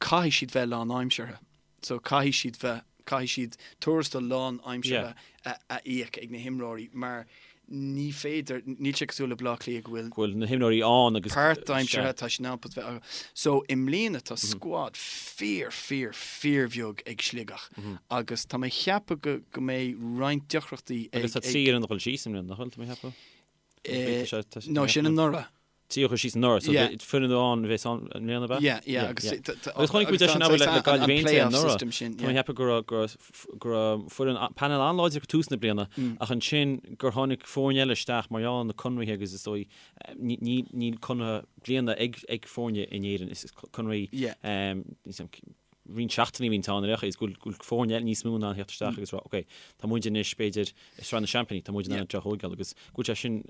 Speaker 3: caithfidh siad bheith lánaimseartha. So caithfidh siad bheith, caithfidh siad tuarastal lánaimseartha a a íoc ag na himreoirí mar ní féidir, níl sé cosúil le Baile Átha Cliath go bhfuil.
Speaker 1: go bhfuil na himreoirí ann agus.
Speaker 3: páirtaimseartha, tá siad in ann bheith acu. So i mbliana tá scuad fíor, fíor, fíorbheag ag Sligeach agus tá mé ag ceapadh go go mbeidh roinnt deacrachtaí
Speaker 1: ag. Agus tá 3 fhoireann ag dul síos i mbliana, nach bhfuil, tá mé ag
Speaker 3: ceapadh? No, sin anuraidh.
Speaker 1: 3 a chuaigh síos anuraidh, so foireann amháin a bheas ann i mbliana, ab
Speaker 3: ea? Yeah, yeah, agus
Speaker 1: Agus chonaic muid é sin abair le Gaillimh Aontaithe anuraidh. Tá mé ag ceapadh go raibh go raibh go raibh foireann painéal an-láidir ag tús na bliana ach ansin gur tháinig foirne eile isteach mar gheall ar na conraithe agus is dóigh ní ní níl conradh bliana ag ag foirne in Éirinn is conraí roinnt seachtainí a bhíonn ann ar aon chaoi is go bhfuil go bhfuil foirne eile níos mó in ann theacht isteach agus rá ok tá muid anois b'fhéidir i Sraith na Seaimpíní tá muid in ann seo a thógáil agus go bhfuil sé sin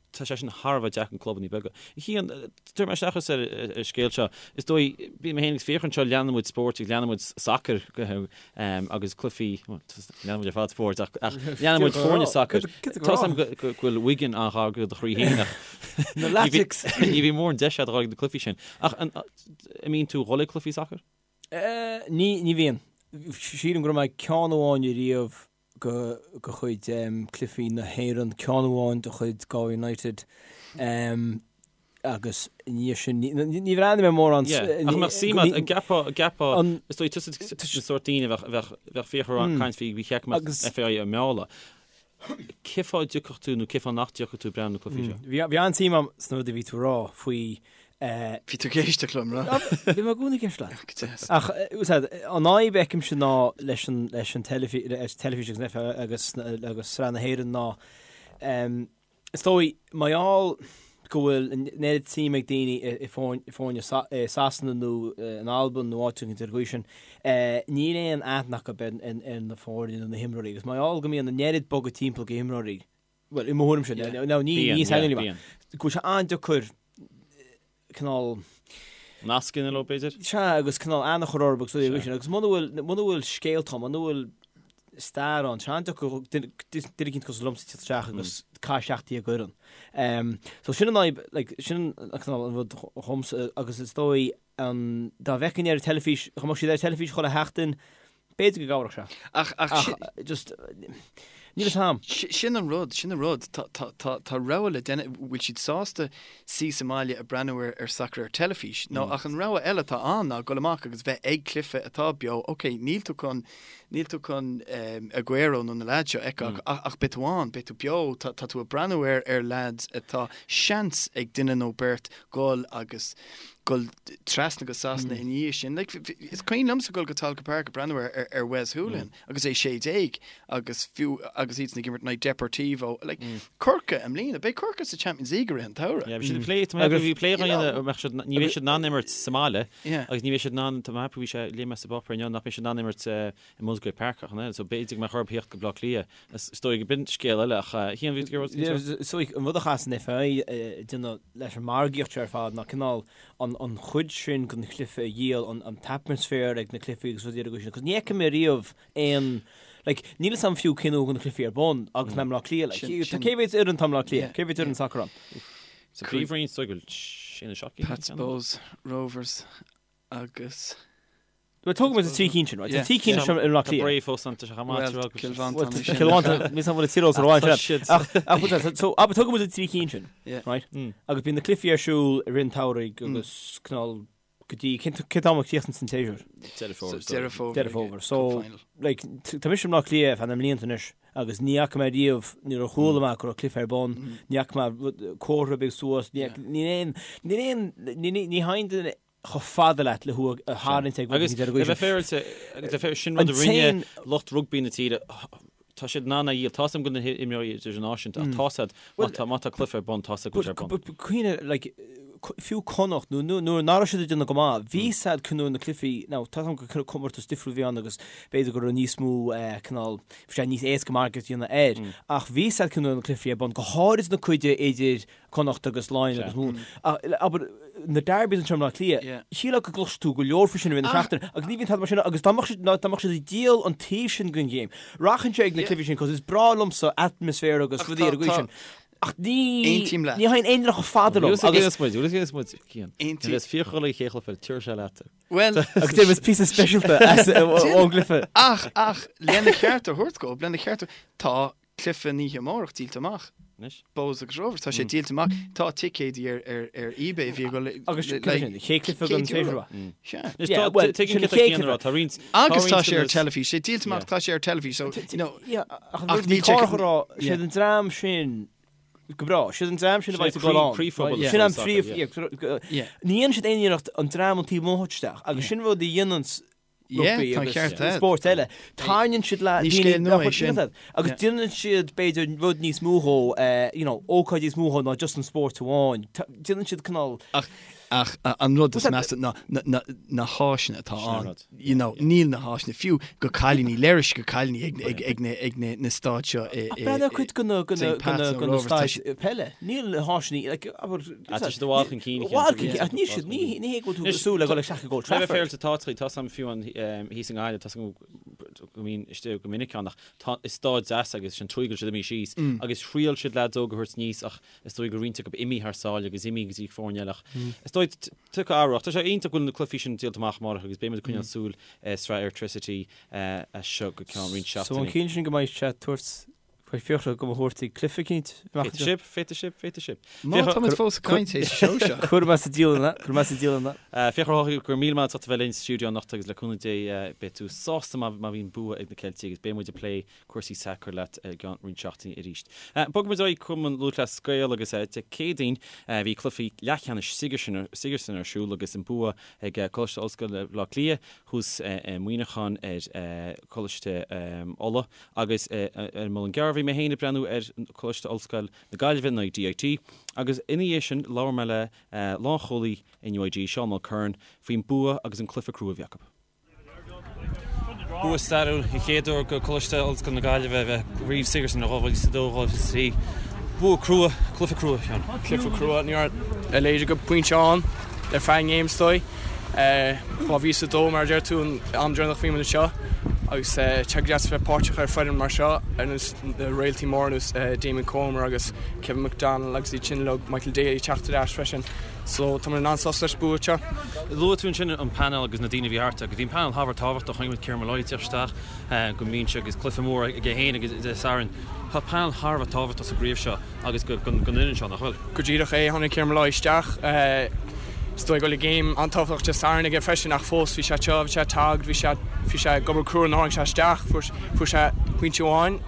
Speaker 1: Tá sé sin thar a bheith deacair do clubanna beaga. Cian, tabharfaidh mé isteach thusa ar an scéal seo. Is dóigh, bíonn mé féin agus Fiachra anseo, leanann muid spóirt agus leanann muid sacar agus cluichí, bhuel, leanann muid ar fad spóirt ach leanann muid foirne sacair. Tá 's agam go bhfuil Wigan an-ghar do do chroí féin ach
Speaker 2: Na Latics!
Speaker 1: ní bhíonn mórán deis agat a dhul ag na cluichí sin. Ach an mbíonn tú ag dhul ag cluichí sacair?
Speaker 2: Ní, ní bhíonn. Sílim go raibh mé ag ceann amháin ariamh de chuid cluichí na hÉireann, ceann amháin de chuid Galway United agus i ndiaidh sin ní bhreathnaigh mé mórán.
Speaker 1: Yeah, ach mbeadh suim agat, an gceapfá, an gceapfá, is dóigh tusa an sórt daoine a bheadh, bheadh, bheadh Fiachra ag caint faoi, bhí check mbeadh FAI á mealladh. Cén fáth a dtiocfadh tú nó cén fáth nach dtiocfadh tú ag breathnú na cluichí seo?
Speaker 2: Bhí an-suim agam sna rudaí a bhí tú a rá faoi
Speaker 3: Bhí tú ag éisteacht liom,
Speaker 2: raibh? Bhí mé i gcónaí ag éisteacht leat. Go deas. Ach, úsáid, an fhadhb a fheicimse ná leis an, leis an teilifís, teilifís agus an FAI agus, agus Sraith na hÉireann ná, is dóigh, mar gheall go bhfuil an oiread suim ag daoine i, i foirne i Sasana nó in Albain nó áit éicint ar an gcaoi sin, níl aon aithne acu ar, ar, ar na foirne nó na himreoirí agus mar gheall go mbíonn an oiread bogadh timpeall go himreoirí, Bhuel, i mo thuairimse, no, ní
Speaker 1: Bíonn,
Speaker 2: ní
Speaker 1: yeah,
Speaker 2: saineolaí mé.
Speaker 1: bíonn.
Speaker 2: Go bhfuil sé an-deacair cineál,
Speaker 1: Nasc a dhéanamh leo, b'fhéidir?
Speaker 2: sea, agus cineál aithne a chur orthu agus rudaí sin. Agus muna bhfuil, muna bhfuil scéalta ann, muna bhfuil stair ann, tá sé an-deacair duine duine eicínt cosúil liomsa teacht isteach agus caith isteach dtí an gcuireann. Um, so sin an fhadhb, like, sin an cineál an rud dhomsa agus is dóigh an, dá bhfeicfinn ar an teilifís, dá mbeadh siad ar an teilifís chuile sheachtain, B'fhéidir go gcabhródh sé.
Speaker 3: Ach, ach,
Speaker 2: Ach, just, níl fhios a'm.
Speaker 3: Sin an rud, sin an rud. Tá, tá, tá, tá rogha le déanamh, bhfuil siad sásta suí sa mbaile ag breathnú ar, ar sacar ar teilifís? Nó, ach an rogha eile atá ann ná dul amach agus bheith ag cluiche atá beo. Ok, níl tú chun, níl tú chun Aguero nó na leaids seo a fheiceáil ach, ach beidh tú ann, beidh tú beo, tá, tá tú ag breathnú ar, ar leaids atá seans ag duine nó beirt dul agus dul trasna go Sasana ina dhiaidh sin. Like, is cuimhin liomsa dul go Tolka Park ag breathnú ar, ar, ar Wes Hoolahan agus é 16 agus fiú agus iadsan ag imirt in aghaidh Deportivo. Like, Corcaigh i mbliana, beidh Corcaigh sa Champions League i rith an tsamhraidh.
Speaker 1: Yeah, bhí siad ag plé, tá mé ag ceapadh bhí plé á dhéanamh, mbeadh siad, ní bheidh siad in ann imirt sa mbaile agus ní bheidh siad in ann, tá mé ag ceapadh bhí sé, léigh mé sa bpáipéar inniu nach mbeidh siad in ann imirt i Musgrave Park ach an oiread, so b'fhéidir go mbeadh orthu theacht go Baile Átha Cliath. Is dóigh go b'in scéal eile ach Cian, bhí tú ag rá
Speaker 2: So an rud a chaithfeas an FAI a dhéanamh leis an margaíocht seo ar fad ná cineál an chuid sin den chluiche a dhíol, an t-atmaisféar ag na cluichí agus rudaí ar an gcaoi sin, 'cause ní fheicim mé riamh aon, like, níl fhios a'm fiú cén uair a bhíonn na cluichí ar bun agus mé i mBleá Cliath, like, tá cé mhéad fhoireann atá i mBleá Cliath, cé mhéad fhoireann sacair ann?
Speaker 1: Sa Phríomhroinn, is dóigh go bhfuil sé nó 7
Speaker 3: Pats, Bohs, Rovers agus.
Speaker 2: Bhuel, tógfaidh muid na 3 cinn sin, right? Tá 3 cinn seo i mBleá
Speaker 1: Tá
Speaker 2: Cliath.
Speaker 1: Bré fós ann, tá sé chomh maith,
Speaker 3: Well, Cill Mhantáin é sin.
Speaker 2: Cill Mhantáin, níl 's agam an bhfuil an tír eolas ar
Speaker 1: Tá
Speaker 2: amháin
Speaker 1: siad.
Speaker 2: Ach, ach, bhuel, so, so, abair, tógfaidh muid na 3 cinn sin,
Speaker 3: Yeah.
Speaker 2: right? Agus bíonn na cluichí ar siúl i rith an tsamhraidh agus cineál go dtí, cén cén t-am a chríochnaíonn an séasúr?
Speaker 1: Deireadh Fómhair.
Speaker 3: Deireadh Fómhair.
Speaker 2: Deireadh Fómhair. So, like, tá mise i mBleá Cliath ar feadh na mblianta anois agus ní fhaca mé riamh, níor chuala mé go raibh cluiche ar bun, ní fhaca mé rud- comhartha ar bith suas, ní níl aon, níl aon, ní ní ní thagann duine chomh fada leat le thú a tharraingt ag
Speaker 1: Agus
Speaker 2: rud
Speaker 1: le bheith féaráilte, agus le bheith sin rud a rinne lucht rugbaí na tíre, tá siad in ann a dhíol. Tá 's agam go bhfuil na himreoirí idirnáisiúnta ach tá siad, má tá, má tá cluiche ar bun, tá siad go bhfuil sé ar bun.
Speaker 2: But cuimhnigh, like, fiú Connacht, nó nuair nach raibh siad ag déanamh go maith, bhí siad nuair na cluichí, now tá 's agam gur comórtas difriúil a bhí ann agus b'fhéidir go raibh níos mó cineál, bhí sé níos éasca margadh a dhéanamh air, ach bhí siad nuair na cluichí ar bun, go háirid na cuid idir Connacht agus Laighin agus Mumhan. Abair, na derbies anseo i mBleá Cliath, shílfeá go gcloisfeadh tú go leor faoi sin i rith na seachtaine agus ní bhíonn tada mar sin agus dá mbeadh siad, dá mbeadh siad ag díol an taobh sin den ghéim, rachainnse ag na cluichí sin cos is breá liomsa atmaisféar agus rudaí ar an gcaoi sin. Ach ní,
Speaker 3: Aontaím leat.
Speaker 2: ní thagann aon duine chomh fada liom
Speaker 1: agus. Bhuel, bhuel, muid, Cian. Aontaím. Is fíorchulaith an chéad chluiche, tabharfaidh sé leat.
Speaker 3: Bhuel,
Speaker 2: Agus déanfaidh píosa speisialta as ón gcluiche.
Speaker 3: Ach, ach, lena cheart a thabhairt dóibh, lena cheart a, tá cluiche an oíche amárach díolta amach.
Speaker 1: Anois.
Speaker 3: Bohs agus Rovers, tá sé díolta amach. Tá ticéidí ar, ar, ar eBay a bhí ag dul
Speaker 2: Agus
Speaker 3: le-
Speaker 2: cad é sin, chéad cluiche den
Speaker 3: €100.
Speaker 2: séasúr?
Speaker 3: Sea.
Speaker 1: Anois,
Speaker 2: Yeah,
Speaker 1: tá,
Speaker 2: well,
Speaker 1: tuigim
Speaker 2: sin
Speaker 1: céard
Speaker 2: an
Speaker 1: tá
Speaker 2: chéad
Speaker 1: Cian a rá, tá roinnt, tá
Speaker 3: Agus tá
Speaker 1: roinnt
Speaker 3: sé ar
Speaker 1: de na-
Speaker 3: teilifís, sé díolta amach, tá sé ar teilifís, so, you know,
Speaker 2: Yeah, ach
Speaker 3: Ach
Speaker 2: an rud
Speaker 3: níl
Speaker 2: bhí
Speaker 3: sé-
Speaker 2: Cárthach a rá,
Speaker 3: Yeah.
Speaker 2: siad an dream sin go breá, siad an dream sin a
Speaker 1: Sin
Speaker 2: bheidh
Speaker 1: é
Speaker 2: ag dul
Speaker 1: croí-
Speaker 2: ann.
Speaker 1: croíphobal
Speaker 2: Right? Sin an
Speaker 1: soccer,
Speaker 2: príomh,
Speaker 1: yeah.
Speaker 2: yeah, go- go-
Speaker 3: Yeah.
Speaker 2: Ní dhéanann siad aon iarracht an dream an taobh amuigh a thabhairt isteach, agus sin rud a dhéanann rugbaí
Speaker 3: tá
Speaker 2: agus
Speaker 3: ceart agat.
Speaker 2: spóirt eile. Tarraingíonn siad le
Speaker 3: Ní
Speaker 2: daoine
Speaker 3: scéal nua
Speaker 2: nach
Speaker 3: é
Speaker 2: bhfuil
Speaker 3: sin.
Speaker 2: siad agus
Speaker 3: Yeah.
Speaker 2: déanann siad b'fhéidir rud níos mó dhó, eh, you know, ócáid níos mó dhó ná just an spórt amháin. Ta- Déanann siad cineál
Speaker 3: Ach, ach a- an rud is
Speaker 2: What's that-
Speaker 3: measa ná na, na, na háiseanna atá
Speaker 1: Sin an
Speaker 3: ann.
Speaker 1: rud.
Speaker 3: You know, níl na háiseanna fiú go cailíní léiris go cailíní ag, ag, ag, na, ag na, na staid seo i, i,
Speaker 2: Breathnaigh ar cuid de na, de na,
Speaker 3: St.
Speaker 2: de
Speaker 3: Pat's
Speaker 2: na,
Speaker 3: nó
Speaker 2: de na
Speaker 3: Rovers, tá
Speaker 2: staid peile. Níl na háiseanna, like, abair,
Speaker 1: Ah, tá siad i bhfad chun cinn,
Speaker 2: I bhfad chun
Speaker 1: yeah.
Speaker 2: cinn, ach níl siad, ní, ní hé go bhfuil tú
Speaker 1: Anois,
Speaker 2: ag súil le dhul isteach ag Old
Speaker 1: Le bheith
Speaker 2: Trafford.
Speaker 1: féaráilte tá tá 's agam fiú an thíos i nGaillimh, tá 's agam go mbínn istigh go minic ann ach tá is staid deas agus sin tuige go bhfuil siad imithe síos agus thriail siad leaids óga a thabhairt aníos ach is dóigh go raibh roinnt acu imithe thar sáile agus imithe go dtí foirne eile ach is dóigh tiocfaidh athrú ach tá sé iontach go bhfuil na cluichí sin díolta amach amárach agus beidh muid ag coinneáil súil ar sraith Airtricity as seo go ceann roinnt
Speaker 2: So an
Speaker 1: seachtainí.
Speaker 2: ciall sin go mbeidh sé ag tabhairt Beidh Fiachra go mo thabhairt ag cluiche eicínt amach
Speaker 1: Féadfaidh sibh, féadfaidh sibh, féadfaidh sibh.
Speaker 3: Má tá muid fós ag caint théis an seó seo.
Speaker 2: Cuirfidh mé sa dialann é, cuirfidh mé sa dialann é.
Speaker 1: Fiachra Ó hEochaidh, go raibh míle maith agat as ucht a bheith linn sa stiúideo anocht agus le cúnamh Dé beidh tú sásta má bhíonn bua ag na Ceiltigh agus beidh muid ag plé cúrsaí sacair leat i gceann roinnt seachtainí arís. Bogfaidh muid ar aghaidh Cumann Lúthchleas Gael agus Dé Céadaoin bhí cluichí leathcheannais Sigerson ar siúl agus an bua ag Coláiste Ollscoile Bhaile Átha Cliath thuas i Muineachán ar Choláiste Uladh. Agus ar an Muileann gCearr bhí mé féin ag breathnú ar Choláiste Ollscoil na Gaillimhe in aghaidh DIT agus ina dhiaidh sin labhair mé le lánchúlaí NUIG, Seán Mulkerrin, faoin bua agus an cluiche crua a bhí acu. Bua stairiúil, an chéad uair do Choláiste Ollscoil na Gaillimhe a bheith i gCraobh Sigerson in 2022, 2023. Bua crua, cluiche crua, Seán.
Speaker 5: Cluiche crua, ní raibh a leithéid de phointe ann ar feadh an game is dóigh. 2002 mar a deir tú an am deireanach bhí muid anseo agus tá sé go deas a bheith páirteach ar foireann mar seo ar nós na réaltaí móra ar nós Damien Comer agus Kevin McDonnell agus iad sin uilig, Michael Daly ag teacht ar ais freisin so tá muid an-sásta leis an bua seo.
Speaker 1: Luaigh tú ansin an painéal agus na daoine a bhí thart agus bhí an painéal thar a bheith tábhachtach, chonaic muid Kieran Molloy ag teacht isteach go mbinse agus cluiche mór aige féin agus Dé Sathairn. Tá painéal thar a bheith tábhachtach sa gcraobh seo agus don fhoireann seo, nach bhfuil?
Speaker 5: Go díreach é, tháinig Kieran Molloy isteach. Is dóigh go bhfuil game an-tábhachtach Dé Sathairn aige freisin ach fós bhí sé anseo, bhí sé ag taghd, bhí sé bhí sé ag obair crua nuair a tháinig sé isteach, fuair fuair sé pointe amháin.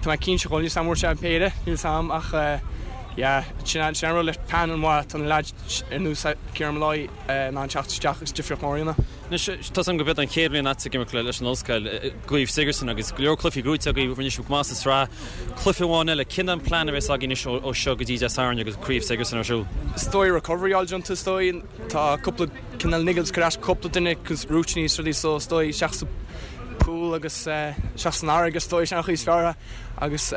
Speaker 5: Tá mé cinnte go bhfuil, níl 's a'm an bhfuair sé an péire, níl 's a'm ach yeah, sin an sin an rud le panel maith, tá na leaids ar nós Kieran Molloy in ann teacht isteach agus difríocht mór a dhéanamh.
Speaker 1: Anois, tá 's agam gurb é an chéad bhliain agat ag imirt leis an Ollscoil i gCraobh Sigerson agus go leor cluichí gnóthaithe agaibh, rinne sibh go maith sa tsraith. Cluiche amháin eile, cén an plean a bheas agaibh anois ó seo go dtí Dé Sathairn agus Craobh Sigerson ar siúl?
Speaker 5: Is dóigh recovery a fháil déanta is dóigh. Tá cúpla cineál niggles ag cur as cúpla duine cos rúitíní is rudaí so is dóigh isteach sa pool agus isteach san fharraige is dóigh sin an chaoi is fearr agus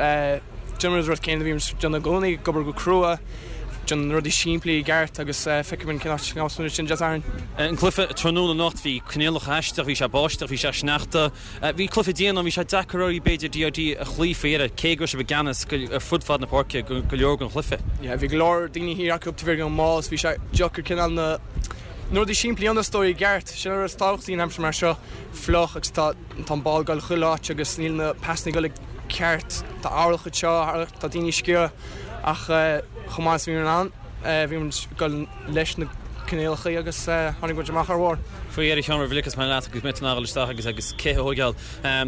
Speaker 5: Déanfaidh muid an rud céanna a bhíonn muid ag déanamh i gcónaí, ag obair go crua, déanamh na rudaí simplí i gceart agus feicfidh muid cén áit a ngabhfas muid ansin Dé Sathairn.
Speaker 1: An cluiche tráthnóna anocht, bhí coinníollacha aisteach, bhí sé báisteach, bhí sé sneachta. Bhí cluiche dian ann, bhí sé deacair oraibh b'fhéidir DIT a chloí faoi dheireadh, cé go raibh sibh i gceannas ar fud fad na páirce go leor den chluiche.
Speaker 5: Yeah, bhí go leor daoine thiar acu taobh thiar den maul, so bhí sé deacair cineál na. Na rudaí simplí a dhéanamh is dóigh i gceart, sin an rud is tábhachtaí in aimsir mar seo, fliuch agus tá tá an ball ag dul chuile áit agus níl na pasanna ag dul i gceart, tá earrach anseo, tá daoine ag sciorradh ach chomh maith is a bhí muid in ann, bhí muid ag dul leis na coinníollacha agus tháinig muid amach ar bharr.
Speaker 1: Faoi dheireadh a Sheáin roimh a ligfeas mé leat agus mé ag dul isteach agus agus cith a thóigeáil.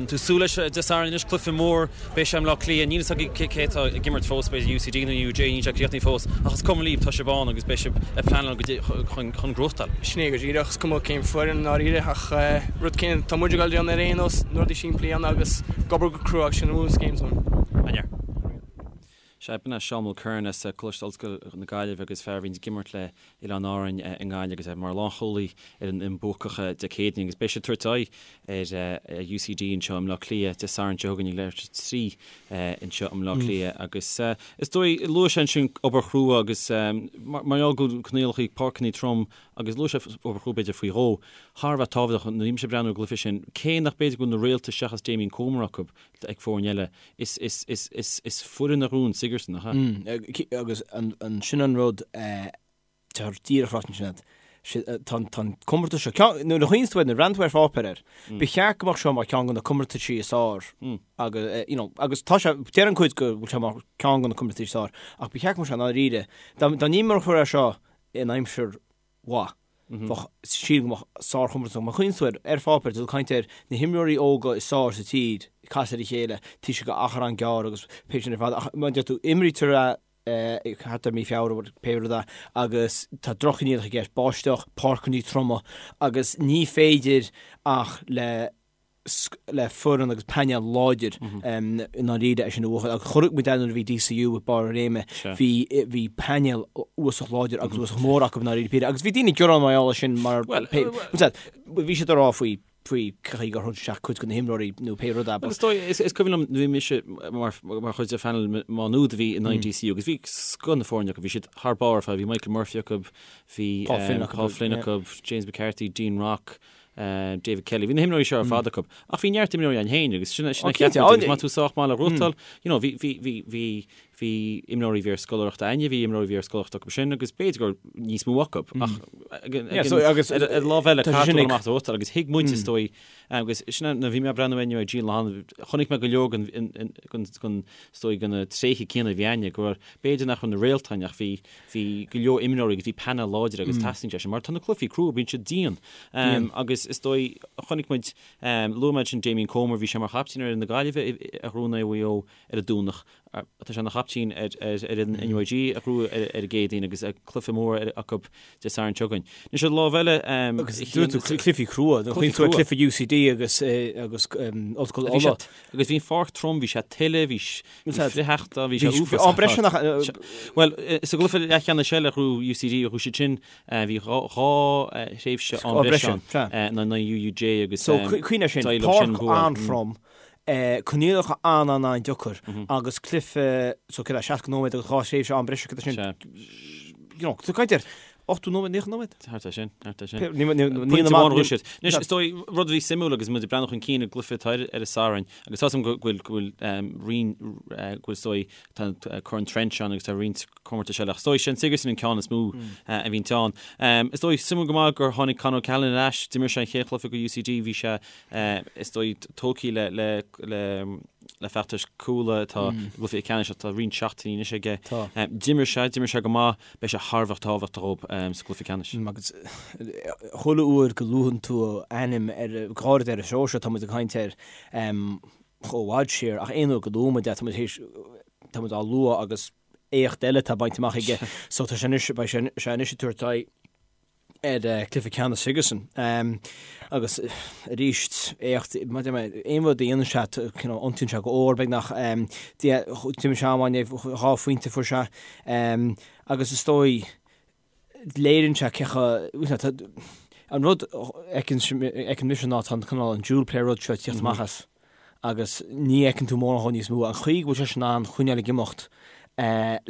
Speaker 1: Tú súil leis Dé Sathairn anois, cluiche mór, beidh sé i mBleá Cliath, níl a fhios againn cé atá ag imirt fós, b'fhéidir UCD nó UJ, níl sé críochnaithe fós, ach is cuma libh, tá sibh ann agus beidh sibh ag pleanáil chun gnóthachtáil.
Speaker 5: Sin é go díreach, is cuma cén foireann i ndáiríre ach rud céanna tá muid ag dul a dhéanamh ar aon nós, na rudaí simplí a dhéanamh agus ag obair go crua agus sin an bhunscéim dúinn.
Speaker 1: An-fhear. Sea, b'in é Seán Mulkerrin as Coláiste Ollscoile na Gaillimhe agus fear a bhíonns ag imirt le Oileáin Árainn i nGaillimh agus é mar lánchúlaí ar an fhoireann buacach Dé Céadaoin agus beidh siad ag tabhairt aghaidh ar UCD anseo i mBleá Cliath Dé Sathairn seo chugainn ag leathuair tar éis 3 anseo i mBleá Cliath agus is dóigh, luaigh sé ansin obair chrua agus mar gheall go bhfuil coinníollacha páirceanna trom agus luaigh sé obair chrua b'fhéidir faoi dhó, thar a bheith tábhachtach nuair a bhí mise ag breathnú ar an gcluiche sin, cé nach b'fhéidir go bhfuil na réalta seachas Damien Comer acu ag foirne eile. Is, is, is, is, is foireann a ghnóthaíonn Sigerson, nach
Speaker 2: ea? Agus an, sin an rud, tá díreach ráite ansin agat. Tá an, tá an comórtas seo, ceann, nuair a chuimhníonn tú air, nuair a bhreathnaíonn tú ar pháipéar air, ba cheart go mbeadh seo mar cheann de na comórtaisí is fearr agus, you know, agus tá sé, deireann cuid go bhfuil sé mar ceann de na comórtaisí is fearr, ach ba cheart go mbeadh sé i ndáiríre, dá, dá n-imreofaí é seo in aimsir mhaith. Bheadh, sílim go mbeadh sárchomórtas ann. Má chuimhníonn tú air, ar pháipéar, tá tú ag caint ar na himreoirí óga is fearr sa tír ag casadh ar a chéile, taobh istigh d'achar an-ghearr agus pé sin ar fad. Ach mar a deir tú, imrítear é thart ar mí Feabhra, pé rud é, agus tá droch-choinníollacha i gceist, báisteach, páirceanna troma agus ní féidir ach le le foireann agus painéal láidir i ndáiríre é sin a bhuachan. Agus chonaic muid é nuair a bhí DCU ag barr a réime, bhí bhí painéal uafásach láidir agus uafásach mór acu i ndáiríre píre. Agus bhí daoine ag gearán mar gheall air sin mar bhí siad ag rá faoi faoi chaoi gur thug isteach cuid de na himreoirí nó pé rud é.
Speaker 1: Is dóigh, is cuimhin liom bhí mise mar mar chuid de phainéal Má Nuad a bhí in aghaidh DCU agus bhí scoth na foirne acu, bhí siad thar barr ar fad, bhí Michael Murphy acu, bhí Paul Flynn acu, Paul Flynn acu, James McCarthy, Dean Rock, David Kelly. Bhí na himreoirí seo ar fad acu. Ach bhí neart imreoirí ann féin agus sin sin a cheap muid agus má tá tú sách maith le gnóthachtáil, you know, bhí, bhí, bhí, bhí, bhí imreoirí a bhí ar scoláireacht againne, bhí imreoirí a bhí ar scoláireacht acu sin agus b'fhéidir gur níos mó acu ach agus ar an lámh eile caithfidh tú dul amach gnóthachtáil agus thuig muid is dóigh agus sin nuair a bhí mé ag breathnú inniu ar Gene Lohan, chonaic mé go leor den, den, den, is dóigh de na tréithe céanna a bhí againne go raibh, b'fhéidir nach raibh na réalta ann ach bhí Bhí go leor imreoirí agus bhí painéal láidir agus teastaíonn sé sin mar tá na cluichí crua, bíonn siad dian. Agus is dóigh, chonaic muid, luaigh mé ansin Damien Comer, bhí sé mar chaiptín ar fhoireann na Gaillimhe a ghnóthaigh in aghaidh Mhaigh Eo ar an Domhnach. Tá sé ina chaiptín ar fhoireann NUIG a ghnóthaigh ar an gCéadaoin agus cluiche mór acu Dé Sathairn seo chugainn. Anois ar an lámh eile,
Speaker 2: Agus dúirt tú cluichí crua, cluichí cluiche UCD agus agus Ollscoil Uladh.
Speaker 1: Agus bhí an pháirc trom, bhí sé tuile, bhí frithsheachta, bhí sé
Speaker 2: uafásach. Am breise nach.
Speaker 1: Bhuel, sa gcluiche leathcheannais eile a ghnóthaigh UCD, ghnóthaigh siad sin, bhí dhá thréimhse am breise ann, in aghaidh UUJ agus
Speaker 2: So, cuimhnigh air sin, páirc an-throm, coinníollacha an-an-an-deacair agus cluiche, so céard é, 60 nóiméad agus dhá thréimhse am breise, céard é sin, you know, tá caint ar 80 nóiméad, 90 nóiméad?
Speaker 1: Thart é sin, thart é sin. Pointe amháin a ghnóthaigh siad. Anois, is dóigh, rud a bhí suimiúil agus muid ag breathnú chun cinn i gcluiche atá ar an Satharn, agus tá a fhios agam go bhfuil, go bhfuil roinnt, go bhfuil is dóigh, tá Corn Trench ann agus tá roinnt comórtais eile, ach is dóigh sé an Sigerson an ceann is mó a bhíonn ann. Is dóigh, suimiúil go maith gur tháinig Con O'Callaghan ar ais, d'imir sé an chéad chluiche do UCD, bhí sé, is dóigh, tógtha le, le, le, le feachtas Cuala atá i gcluiche ceannais ach tá roinnt seachtainí anois aige. D'imir sé, d'imir sé go maith, beidh sé thar a bheith tábhachtach dhóibh sa gcluiche ceannais.
Speaker 2: Agus chuile uair go luann tú a ainm ar, go háirid ar an seó seo, tá muid ag caint air chomh fhad siar, ach aon uair go luann muid é, tá muid théis, tá muid á lua agus éacht eile atá bainte amach aige. So tá sé anois, beidh sé anois ag tabhairt aghaidh ar chluiche ceannais Sigerson. Agus arís, éacht, aon rud a dhéanann sé, iontaíonn sé go mór beagnach. D'imir sé an-mhaith inné, dhá phointe fuair sé. Agus is dóigh, léiríonn sé cé chomh, an rud a fheiceann mise ná tá an cineál an dual player rud seo ag tíocht amach as. agus ní fheiceann tú mórán dhó níos mó, an chaoi go bhfuil sé in ann coinneáil ag imeacht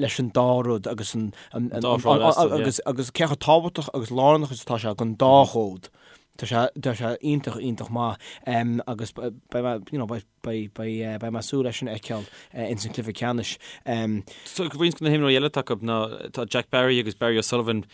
Speaker 2: leis an dá rud agus an agus agus cé chomh tábhachtach agus lárnach is atá sé don dá chód. Tá sé, tá sé iontach, iontach maith agus beidh mé, you know, beidh, beidh, beidh, beidh mé ag súil leis sin a fheiceáil ins an cluiche ceannais.
Speaker 1: So roinnt de na himreoirí eile atá acu ná tá Jack Barry agus Barry O'Sullivan,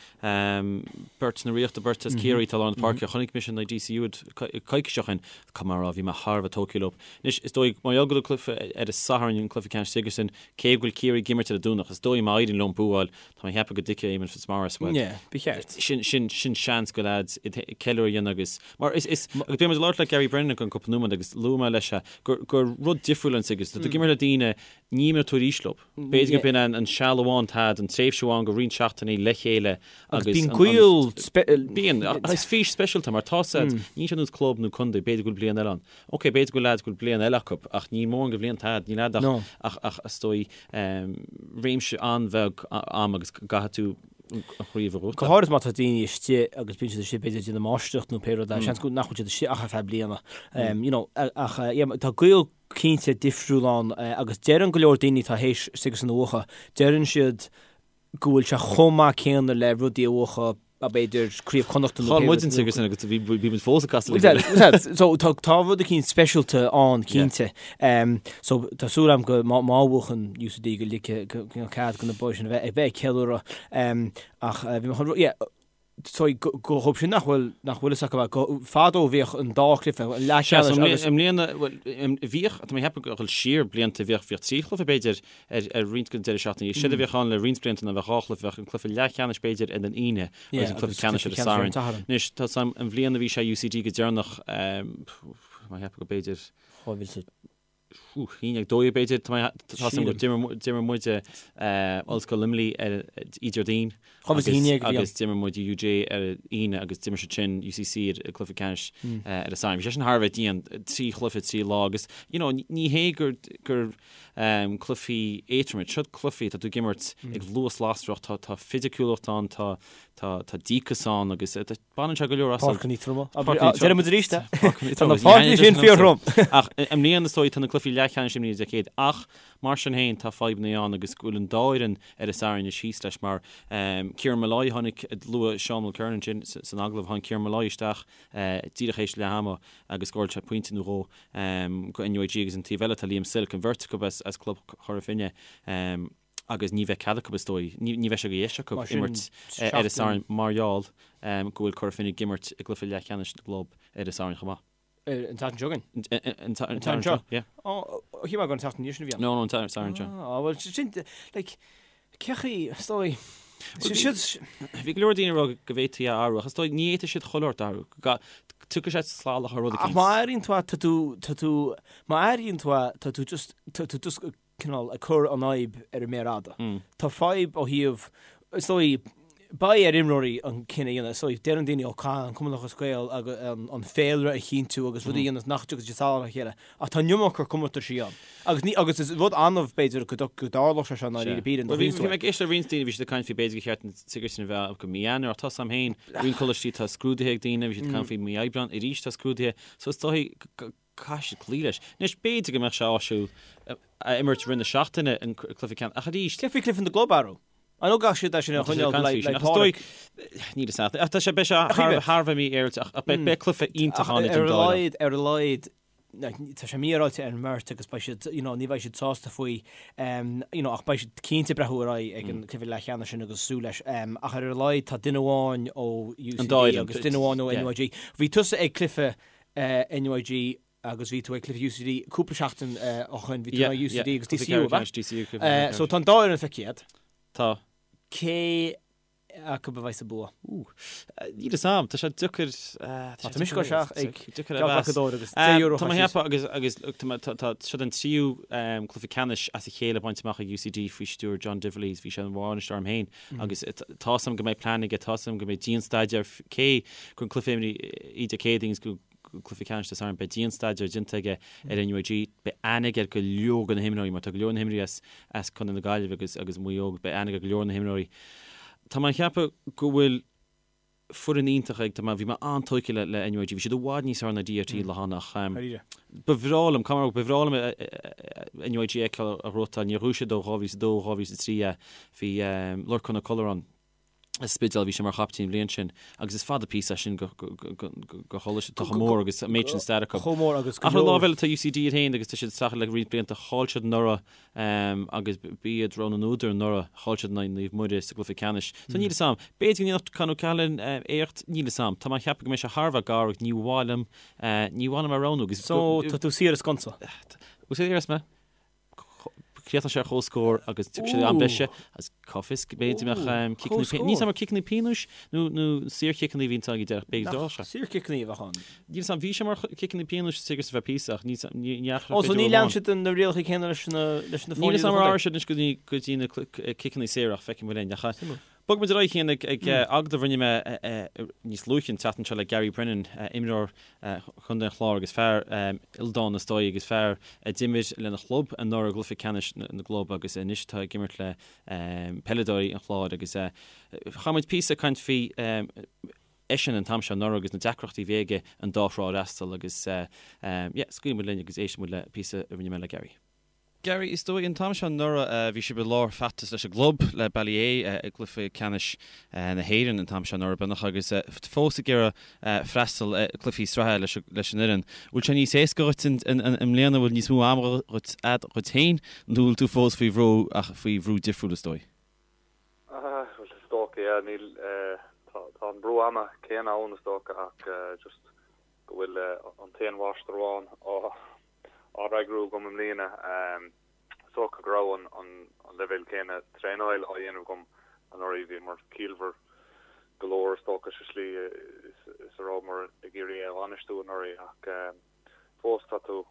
Speaker 1: beirt na Ríochta, beirt as Ciarraí atá i lár na páirce. Chonaic mise in aghaidh DCU iad coicís ó shin, caithfidh mé a rá, bhí mé thar a bheith tógtha leo. Anois, is dóigh, mar gheall go bhfuil cluiche ar an Satharn, an cluiche ceannais Sigerson, cé go bhfuil Ciarraí ag imirt ar an Domhnach, is dóigh má éiríonn leo buáil, Tá mé ag ceapadh go dtuigfidh Éamonn Fitzmaurice, bhuel,
Speaker 2: Yeah, ba cheart.
Speaker 1: sin, sin, sin seans go leaids ceiliúradh a dhéanamh agus, mar is, is, agus beidh muid ag labhairt le Gary Brennan i gceann cúpla nóiméad agus luaigh mé leis é, gur, gur rud difriúil an Sigerson, tá tú ag imirt le daoine, ní imreoidh tú arís leo. B'fhéidir gurb in an, an seal amháin atá agat, an tréimhse amháin go roinnt seachtainí le chéile
Speaker 2: Agus agus bíonn an, an, gaol
Speaker 1: spe-. Bíonn, ach is fís speisialta mar tá said, níl sé ar nós club nó contae, b'fhéidir go bhfuil bliain eile ann. Ok, b'fhéidir go bhfuil leaids go bhfuil bliain eile acu, ach níl mórán de bhlianta agat, níl agat ach,
Speaker 2: No.
Speaker 1: ach, ach is dóigh, réimse an-bheag ama agus go gcaithfidh tú an chraobh a
Speaker 2: Go
Speaker 1: ghnóthachtáil.
Speaker 2: háirid má tá daoine istigh agus bíonn siad istigh b'fhéidir ag déanamh máistreacht nó pé rud é, seans go nach bhfuil siad istigh ach ar feadh bliana. You know, ach yeah, tá gaol cinnte difriúil ann agus deireann go leor daoine atá théis Sigerson a bhuachan, deireann siad go bhfuil sé chomh maith céanna le rudaí a bhuachan b'fhéidir Craobh Chonnachta nó
Speaker 1: Chaill muid an Sigerson agus bhí bhí muid fós ag casadh le chéile.
Speaker 2: So tá tá rud eicínt speisialta ann cinnte. So tá súil agam go má má bhuachann UCD go ligfidh go go cead go na boys sin a bheith ag bheith ag ceiliúradh. Ach bhí mé chun yeah so go go dhóibh sin nach bhfuil nach bhfuil fhios acu go fadó bhíodh an dá chluiche an
Speaker 1: leathcheannais agus I mbliana bhuel bhíodh tá mé ag ceapadh ag dul siar blianta bhíodh bhíodh 3 chluiche b'fhéidir ar ar roinnt den deireadh seachtaine. Séard a bhíodh ann le roinnt blianta ná bheadh 2 chluiche, bheadh an cluiche leathcheannais b'fhéidir ar an Aoine agus an cluiche ceannais ar an Satharn. Anois tá 's agam an bhliain a bhí sé UCD go deireanach, tá mé ag ceapadh go b'fhéidir. 2012 b'fhéidir, tá mé tá 's agam go d'imir muide Ollscoil Luimnigh ar Déardaoin agus d'imir muid UJ ar an Aoine agus d'imir siad sin UCC ar an cluiche ceannais ar an Satharn. Bhí sé sin thar a bheith dian, 3 chluiche 3 lá agus you know ní hé gur gur cluichí éadroma iad, siod cluichí, tá tú ag imirt ag luas lasrach, tá tá fisiciúlacht ann, tá tá tá díocas ann agus baineann sé go leor
Speaker 2: asat. Páirceanna troma. Deireann muid arís é. Tá na páirceanna sin fíorthrom.
Speaker 1: Ach i mbliana is dóigh tá na cluichí leathcheannais imithe Dé Céadaoin ach mar sin féin tá fadhbanna ann agus go bhfuil an dá fhoireann ar an Satharn anois thíos leis mar Kieran Molloy tháinig luaigh Seán Mulkerrin ansin san agallamh tháinig Kieran Molloy isteach díreach théis leath ama agus scóráil sé pointe nó dhó go NUIG agus an taobh eile tá Liam Silke an bheirt acu as club Chora Finne agus ní bheidh cead acu is dóigh, ní bheidh sé de dheis acu imirt ar an Satharn mar gheall go bhfuil Cora Finne ag imirt i gcluiche leathcheannais na gclub ar an Satharn chomh maith.
Speaker 2: An tseachtain seo
Speaker 1: chugainn? An tSatharn seo, yeah.
Speaker 2: Ó, shíl mé gur an tseachtain sin a bhí
Speaker 1: ann. No, no, an Satharn seo.
Speaker 2: Á, bhuel, sin, like, cé chaoi, is dóigh,
Speaker 1: Bhí go leor daoine ag rá go bhféadfaí a athrú ach is dóigh ní fhéadfaidh siad chuile shórt a athrú. Tiocfaidh sé salach ar rud
Speaker 2: eicínt. Ach má athraíonn tú é, tá tú, tá tú, má athraíonn tú é, tá tú just, tá tú just cineál ag cur an fhadhb ar an méar fhada. Tá fadhb ó thaobh, is dóigh, beidh ar imreoirí an cinneadh a dhéanamh. Is dóigh, deireann daoine, ó caithfidh an Cumann Lúthchleas Gael an féilire a chinntiú agus rudaí a dhéanamh nach dtiocfaidh siad salach ar a chéile. Ach tá an iomarca comórtaisí ann. Agus ní, agus is rud annamh, b'fhéidir, go dtarlódh sé seo i ndáiríre píre.
Speaker 1: Bhuel, bhí mé ag éisteacht le roinnt daoine, bhí siad ag caint faoi b'fhéidir gur cheart an Sigerson a bheith go mí Eanáir, ach tá 's agam féin, roinnt coláistí tá scrúduithe ag daoine, bhí siad ag caint faoi mí Aibreán, arís tá scrúduithe, so is dóigh go caithfidh siad cloí leis. Anois, b'fhéidir go mbeadh sé áisiúil a imirt i rith na seachtaine an cluiche ceannais, ach arís.
Speaker 2: Cé faoi cluiche na gclub, arú? I know gach siad é sin a choinneáil le
Speaker 1: Pádraig. Níl a fhios agat. Ach tá sé, beidh sé thar a bheith mífhéaráilte, ach beidh cluiche iontach ann
Speaker 2: idir an dá fhoireann. Ar a laghad, tá sé mífhéaráilte ar an mbeirt agus beidh siad, you know, ní bheidh siad sásta faoi, you know, ach beidh siad cinnte ag breathnú ar aghaidh ag an cluiche leathcheannais sin agus súil leis. Ach ar a laghad tá duine amháin ó UCD agus duine amháin ó NUIG. Bhí tusa ag cluiche NUIG agus bhí tú ag cluiche UCD cúpla seachtain ó shoin, bhí tú ag UCD agus DCU, ab ea? So tá an dá fhoireann feicthe agat.
Speaker 1: Tá.
Speaker 2: Cé acu a bheidh sa bua?
Speaker 1: Níl fhios a'm, tá sé deacair.
Speaker 2: Tá mise ag dul isteach ag geallghlacadóir agus €10
Speaker 1: Tá mé ag ceapadh agus agus tá siod an tríú cluiche ceannais as a chéile bainte amach ag UCD faoi stiúir John Divilly, bhí sé ina bhainisteoir orm féin agus tá 'fhios a'm go mbeidh plean aige, tá 'fhios a'm go mbeidh dian-staidéar cé gur an cluiche imithe Dé Céadaoin agus go cluiche ceannais Dé Sathairn, beidh dian-staidéar déanta aige ar NUIG, beidh aithne aige ar go leor de na himreoirí, mar tá go leor de na himreoirí as as Contae na Gaillimhe agus agus Maigh Eo, beidh aithne aige ar go leor de na himreoirí. Tá mé ag ceapadh go bhfuil foireann iontach ag, tá mé, bhí mé an-tógtha le le NUIG, bhí siad i bhfad níos fearr ná DRT lá cheana ach ba bhreá liom, caithfidh mé a rá, ba bhreá liom NUIG a fheiceáil á ghnóthachtáil, níor ghnóthaigh siad ó 2002, 2003 é, bhí Lorcán Ó Colla ann. Spidéal, bhí sé mar chaiptín an bhliain sin agus is fada píosa é sin go choláiste atá chomh mór agus an méid sin stair acu.
Speaker 2: Chomh mór agus go
Speaker 1: Ach ar an lámh eile tá UCD iad féin agus tá siad ag streachailt le roinnt blianta. Chaill siad anuraidh agus b'iad rogha na n-údar anuraidh. Chaill siad in aghaidh Naomh Muire sa gcluiche ceannais. So níl 'fhios a'm. B'fhéidir go ndéanfadh Con O'Callaghan éacht, níl 'fhios a'm. Tá mé ag ceapadh go mbeidh sé thar a bheith gar agus ní mhaith liom, ní mhaith liom a roghnú agus.
Speaker 2: So tá tú saor as sconsa.
Speaker 1: Bhfuil saor as mé? Críochnóidh sé ar comhscór agus tiocfaidh sé am breise agus cá bhfios go mb'fhéidir mbeadh ciceanna pionóis. Níl 'fhios a'm ar ciceanna pionóis nó nó saorchiceanna a bhíonn ag deireadh b'fhéidir
Speaker 2: d'fhág sé. Saorchiceanna a bheadh ann.
Speaker 1: Níl 'fhios a'm, bhí sé mar chiceanna pionóis sa tigh ar feadh píosa ach níl 'fhios a'm, ní
Speaker 2: dheachaigh Ó so ní lean siad na rialacha céanna leis na leis na
Speaker 1: Níl 'fhios a'm ar athraigh siad anois go dtí go dtí na ciceanna saora ach feicfidh muid linn. Ach Bogfaidh muid ar aghaidh féin ag agallamh a rinne mé níos luaithe an tseachtain seo le Gary Brennan, imreoir Chontae an Chláir agus fear ildánach is dóigh agus fear a d'imir lena chlub anuraidh i gcluiche ceannais na gclub agus anois atá ag imirt le peileadóirí an Chláir agus chaith muid píosa ag caint faoi eisean an t-am seo anuraidh agus na deacrachtaí a bhí aige an dá thrá a fhreastal agus yeah, scaoilfidh muid linn agus éistfidh muid le píosa a rinne mé le Gary. Gary, is dóigh, an t-am seo anuraidh, bhí sibh i lár feachtas leis an gclub, le Ballyea, i gcluiche ceannais na hÉireann an t-am seo anuraidh, beagnach, agus fós ag iarraidh freastal ar chluichí sraithe leis an fhoireann. Bhfuil sé níos éasca dhuit i mbliana, bhfuil níos mó ama dhuit dhuit féin, nó bhfuil tú fós faoi bhrú, ach faoi bhrú difriúil, is dóigh?
Speaker 6: Bhuel, is dócha, yeah, níl, tá an brú ama céanna ann, is dócha, ach just go bhfuil an t-aon mháistir amháin á fhreagrú agam i mbliana. Is dócha go raibh an leibhéal céanna traenáil á dhéanamh agam anuraidh. Bhíomar ciallmhar go leor is dócha sa slí is a rabhamar ag iarraidh é a bhainistiú anuraidh ach fós tá tú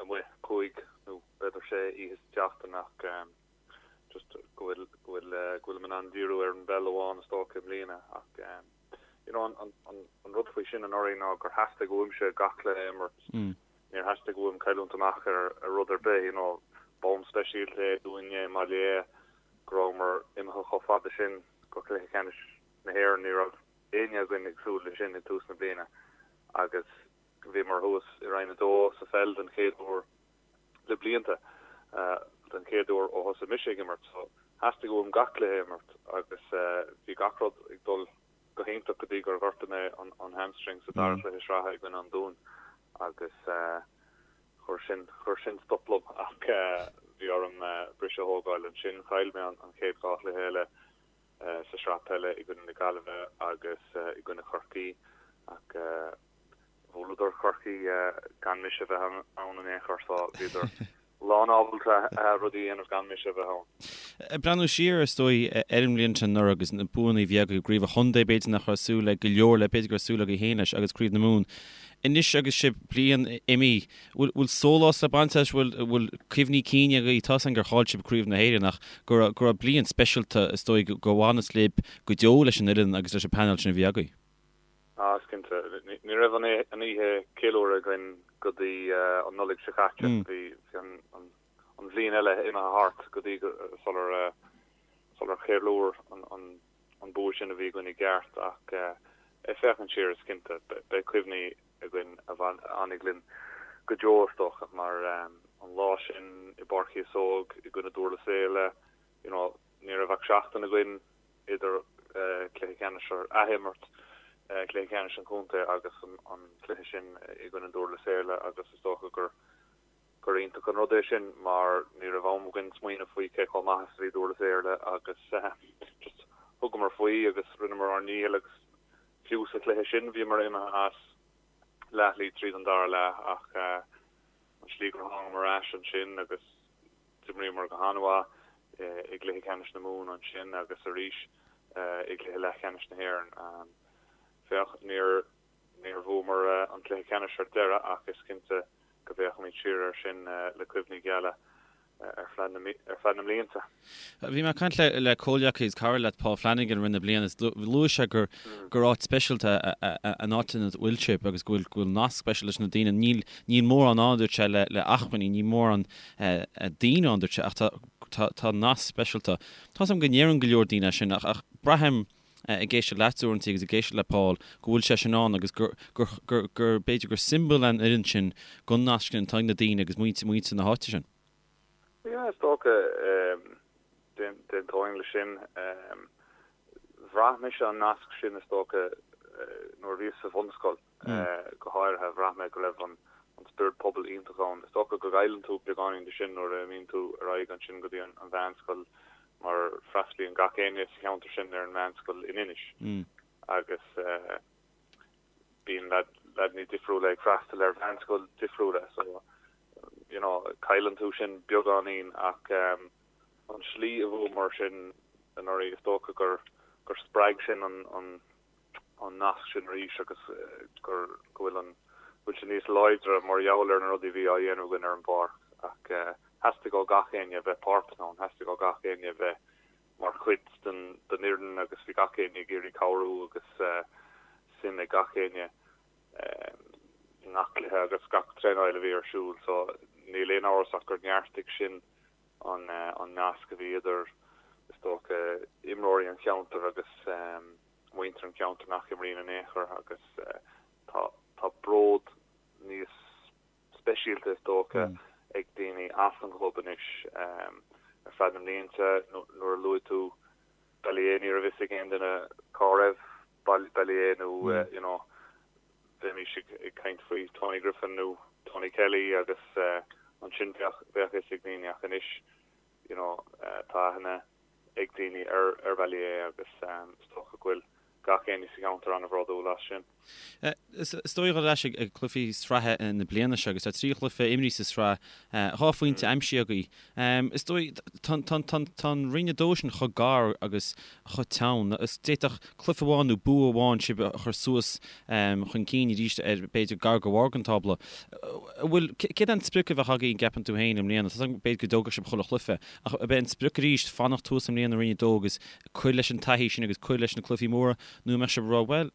Speaker 6: amuigh cúig nó b'fhéidir sé oíche sa tseachtain ach just go bhfuil go bhfuil go bhfuilim in ann díriú ar an bpeil amháin is dócha i mbliana ach you know an an an rud faoi sin anuraidh ná gur theastaigh uaimse gach cluiche a imirt. Níor theastaigh uaim cailliúint amach ar ar rud ar bith you know bonn speisialta é dúinne i mBaile Átha go rabhamar imithe chomh fada sin go cluiche ceannais na hÉireann. Ní raibh éinne againn ag súil leis sin ag tús na bliana agus bhíomar thuas i Roinn 2 sa pheil den chéad uair le blianta, den chéad uair ó thosaigh mise ag imirt. So, theastaigh uaim gach cluiche a imirt agus bhí gach rud ag dul go hiontach go dtí gur ghortaigh mé an hamstring sa dara cluiche sraithe i gcoinne an Dúin agus chuir sin, chuir sin stop liom ach bhí orm briseadh a thógáil ansin. Chaill mé an chéad dhá chluiche eile sa sraith peile i gcoinne na Gaillimhe agus i gcoinne Chorcaí ach Bhuaileadar Corcaigh gan mise a bheith ann in aon chor so bhíodar lán ábalta rudaí a dhéanamh gan mise a bheith ann.
Speaker 1: Ag breathnú siar, is dóigh, ar an mbliain sin anuraidh agus na buanna a bhí agaibh, i gcraobh an chontae, b'fhéidir nach raibh súil ag go leor le, b'fhéidir go raibh súil agaibh féin leis, agus craobh na Mumhan. Anois agus sibh bliain imithe, bhfuil sólás le baint as, bhfuil cuimhní cinn agaibh, tá's againn gur chaill sibh craobh na hÉireann ach go raibh bliain speisialta, is dóigh, go bhfanfas libh go deo leis an fhoireann agus leis an bpainéal sin a bhí agaibh.
Speaker 6: Ah, is cinnte. Ní raibh an oíche ceiliúrtha againn go dtí an Nollaig seo caite. Bhí an bhliain eile imithe thart go dtí sular sular cheiliúr an bua sin a bhí againn i gceart. Ach ag féachaint siar, is cinnte, beidh cuimhní againn a fhanfaidh linn go deo, is dócha, mar an lá sin i bPáirc Chíosóg i gcoinne Dúrlas Éile, you know, ní raibh ach seachtain againn idir cluiche ceannais ar athimirt cluiche ceannais an chontae agus an cluiche sin i gcoinne Dúrlas Éile agus is dócha gur gur iontach an rud é sin mar ní raibh am againn smaoineamh faoi cé chomh maith is a bhí Dúrlas Éile agus just thugamar faoi agus rinneamar ár ndícheall agus fiú sa chluiche sin bhíomar imithe as leathshlí tríd an dara leath ach an slí gur thángamar ar ais ansin agus D'imríomar go han-mhaith i gcluiche ceannais na Mumhan ansin agus arís i gcluiche leathcheannais na hÉireann. Féach, níor níor bhuamar an cluiche ceannais ar deireadh ach is cinnte go bhféachfaimid siar air sin le cuimhní geala ar feadh na ar feadh na mblianta.
Speaker 1: Bhí mé ag caint le le comhghleacaí is cara leat Paul Flanagan i rith na bliana is luaigh sé gur gur áit speisialta an áit ina bhfuil sibh agus go bhfuil go bhfuil nasc speisialta leis na daoine. Níl níl mórán ann, a dúirt sé, le le acmhainní, níl mórán daoine ann, dúirt sé, ach tá, tá, tá nasc speisialta. Tá's agam go ndeireann go leor daoine é sin ach, ach braithim, ag éisteacht leat uaireanta agus ag éisteacht le Paul, go bhfuil sé sin ann agus gur, gur, gur, gur, b'fhéidir gur siombail an fhoireann sin den nasc sin atá ag na daoine agus muintir, muintir na háite sin.
Speaker 6: Yeah, is dócha, d'aontóinn leis sin. Bhraith mise an nasc sin is dócha nuair a bhíos sa bhunscoil go háirithe, bhraith mé go raibh an spiorad pobail iontach ann. Is dócha go gcailleann tú beagáinín de sin nuair a imíonn tú ar aghaidh ansin go dtí an mheánscoil mar freastalaíonn gach éinne sa cheantar sin ar an meánscoil in Inis agus bíonn leaideanna difriúla ag freastal ar mheánscoil difriúla so you know cailleann tú sin beagáinín ach An tslí a bhuamar sin anuraidh, is dócha gur gur spreag sin an an nasc sin arís agus gur go bhfuil an go bhfuil sé níos láidre mar gheall ar na rudaí a bhí á dhéanamh againn ar an bpáirc. Ach theastaigh ó gach éinne a bheith páirteach ann, theastaigh ó gach éinne a bheith mar chuid den den fhoireann agus bhí gach éinne ag iarraidh cabhrú agus suim ag gach éinne i ngach cluiche agus gach traenáil a bhí ar siúl. So níl aon amhras ach gur neartaigh sin an nasc a bhí idir, is dócha, imreoirí an cheantair agus muintir an cheantair nach imríonn in aon chor agus tá tá bród níos speisialta, is dócha, ag daoine as an gclub anois. Ar feadh na mblianta nuair a luaigh tú Ballyea ní raibh fhios ag aon duine cá raibh Ballyea nó you know bheimis ag caint faoi Tony Griffin nó Tony Kelly agus ansin bheadh bheadh fhios ag daoine ach anois you know tá aithne ag daoine ar ar Ballyea agus is dócha go bhfuil gach éinne sa cheantar an-bhródúil as sin.
Speaker 1: Is dóigh dul ar ais ag cluichí sraithe na bliana seo agus tá 3 chluiche imrithe sa sraith, 2 phointe aimsithe agaibh. Is dóigh, tá an Roinn 2 sin chomh gar agus chomh teann. D'fhéadfadh cluiche amháin nó bua amháin sibh a chur suas chun cinn arís ar b'fhéidir gar go bharr den tábla. An bhfuil, céard é an sprioc a bheadh agaibh an gceapann tú féin i mbliana? Tá b'fhéidir go dtógfadh sibh chuile chluiche, ach ab é an sprioc arís fanacht thuas i mbliana i Roinn 2 agus cur leis an taithí sin agus cur leis na cluichí móra nó an mbeadh sibh ag rá bhuel,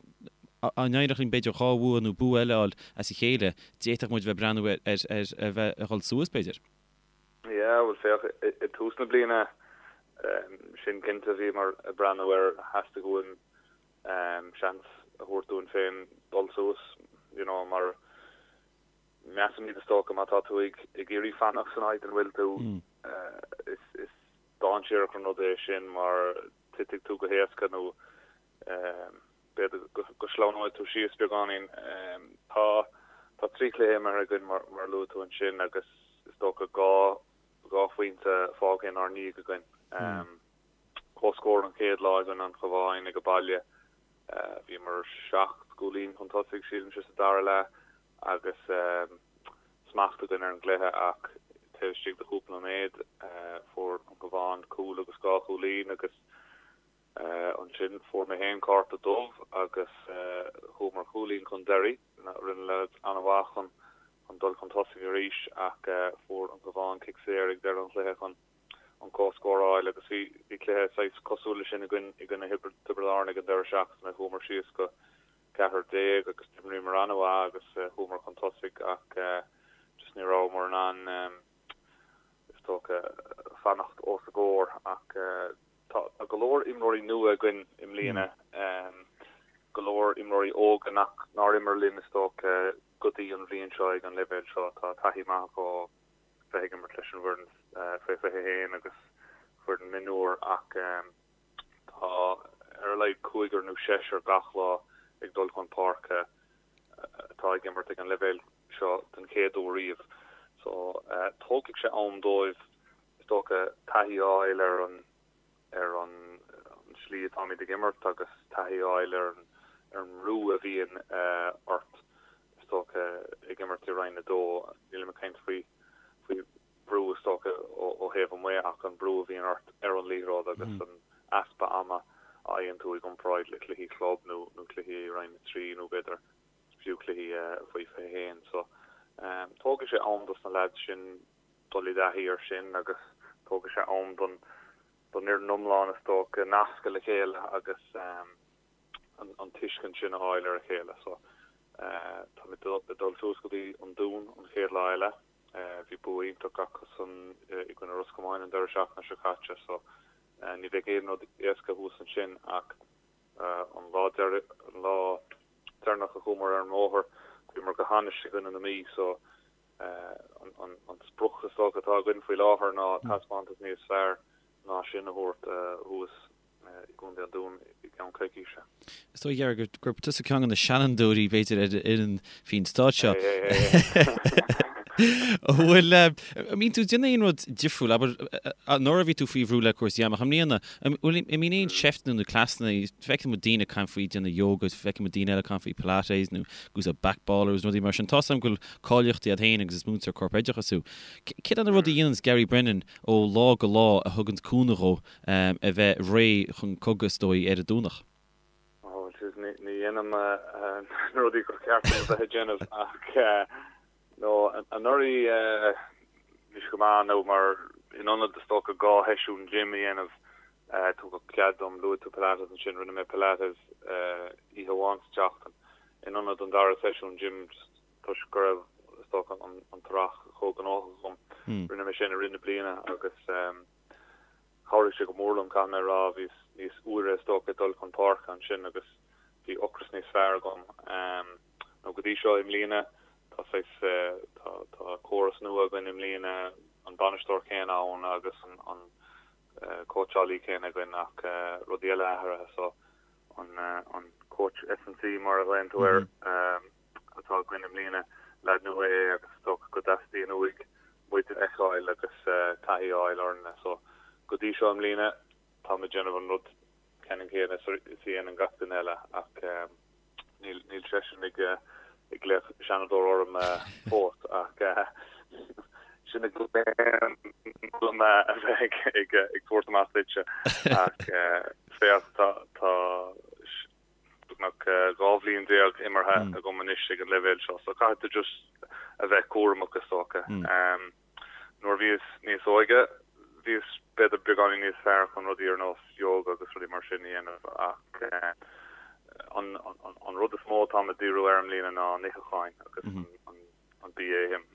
Speaker 1: dá n-éireodh linn b'fhéidir 2 bhua nó bua eile a fháil as a chéile, d'fhéadfadh muid a bheith ag breathnú ar a bheith ag dhul suas b'fhéidir?
Speaker 6: Yeah, bhuel féach, i dtús na bliana, sin cinnte, bhíomar ag breathnú ar, theastaigh uainn seans a thabhairt dúinn féin dul suas, you know, mar measaimid is dócha má tá tú ag iarraidh fanacht san áit ina bhfuil tú, is, is dainséarach an rud é sin mar titfidh tú go héasca nó B'fhéidir go sleamhnóidh tú síos beagáinín. Tá tá 3 chluiche imeartha againn mar a luaigh tú ansin agus is dócha 2 2 phointe fágtha inár ndiaidh againn. Comhscór an chéad lá i gcoinne an Chabháin ag baile. Bhíomar 7 gcúilín chun tosaigh sílimse sa dara leath agus smacht againn ar an gcluiche ach taobh istigh de chúpla nóiméad fuair an Cabhán cúl agus 2 chúilín agus Ansin fuair mé féin cárta dubh agus chuamar cúilín chun deiridh. Rinne na leaids an-mhaith chun dul chun tosaigh arís ach fuair an Cabhán cic saor ag deireadh an chluiche chun an comhscór a fháil agus bhí cluiche saghas cosúil leis sin againn i gcoinne Thiobraid Árann ag an deireadh seachtaine. Chuamar síos go 14 agus d'imríomar an-mhaith agus chuamar chun tosaigh ach just ní rabhamar in ann is dócha fanacht os a gcomhair ach Tá go leor imreoirí nua againn i mbliana, go leor imreoirí óga nach nár imir linn is dócha go dtí an bhliain seo ag an leibhéal seo. Tá taithí maith acu ó bheith ag imirt leis an bhfoireann faoi 21 agus foireann mionúr ach tá ar a laghad cúigear nó seisear gach lá ag dul chun páirce atá ag imirt ag an leibhéal seo den chéad uair riamh. So tógfaidh sé am dóibh is dócha, taithí a fháil ar an ar an slí atáimid ag imirt agus taithí a fháil ar an ar an mbrú a bhíonn ort, is dócha, ag imirt i Roinn 2. Nílim ag caint faoi faoi bhrú, is dócha, ó thaobh amuigh ach an brú a bhíonn ort ar an liathróid agus an easpa ama a fhaigheann tú i gcomparáid le cluichí club nó nó cluichí i Roinn 3 nó b'fhéidir fiú cluichí faoi 21. So, tógfaidh sé am dos na leaids sin dul i dtaithí air sin agus tógfaidh sé am don don fhoireann iomlán is dócha nascadh le chéile agus an tuiscint sin a fháil ar a chéile. So táimid ag dul suas go dtí an Dún an chéad lá eile. Bhí bua iontach acusan i gcoinne Ros Comáin an deireadh seachtaine seo caite so ní bheidh aon rud éasca thuas ansin ach an lá an lá deireanach a chuamar ar an mbóthar bhíomar go hainnis i gcoinne na Mí so An sprioc is dócha atá againn faoi láthair ná taispeántas níos fearr ná sin a thabhairt thuas i gContae an Dúin. gceann coicíse.
Speaker 1: Is dóigh, Gary, gurb tusa ceann de na seanfhondúirí, b'fhéidir, ar an fhoireann faoin staid seo. An bhfuil, an mbíonn tú ag déanamh aon rud difriúil, abair, anuraidh bhí tú faoi bhrú le cúrsaí ama, ach i mbliana, an bhfuil, an mbíonn aon seifteanna nó cleasanna, feicim daoine ag caint faoi déanamh yoga, feicim daoine eile ag caint faoi pilates nó ag úsáid back ballers, rudaí mar sin. Tá's agam go bhfuil cáilíochtaí agat féin agus is múinteoir corpoideachais thú. Céard é na rudaí a dhéananns Gary Brennan ó lá go lá a thuganns cúnamh dhó a bheith réidh chun cogaidh, is dóigh, ar an Domhnach?
Speaker 6: Ó, jeez, ní dhéanaim na rudaí gur cheart dom a bheith ag déanamh ach no, anuraidh bhí sé go maith nó mar in ionad is dócha 2 sheisiún gym a dhéanamh tugadh cead dom, luaigh tú Pilates ansin, rinne mé Pilates oíche amháin sa tseachtain in ionad an dara seisiún gym just toisc go raibh, is dócha, an t-earrach chomh gnóthach agam. Rinne mé sin i rith na bliana agus chabhraigh sé go mór liom, caithfidh mé a rá. Bhíos níos úire, is dócha, ag dul chun páirce ansin agus bhí ocras níos fearr agam. Nó go dtí seo i mbliana, tá saghas, tá, tá córas nua againn i mbliana, an bainisteoir céanna ann agus an, an cóitseálaí céanna againn ach rudaí eile athraithe so an, an coach S&C mar a ghlaonn tú air, atá againn i mbliana. Leaid nua é agus is dócha go dteastaíonn uaidh muid a fheiceáil agus taithí a fháil orainne. So, go dtí seo i mbliana, táim ag déanamh an rud ceannann céanna is a dhéanann gach duine eile ach níl níl seisean ag ag glaoch seanadóir orm fós ach sin a ghlaonn dom a bheith ag ag ag tabhairt amach duitse ach féach tá tá beagnach 12 bhliain imeartha agam anois ag an leibhéal seo, so caithfidh tú just a bheith cúramach is dócha. Nuair a bhíos níos óige, bhíos b'fhéidir beagáinín níos fearr chun rudaí ar nós yoga agus rudaí mar sin a dhéanamh ach an rud is mó atáim ag díriú air i mbliana ná an itheacháin agus an bia a ithim.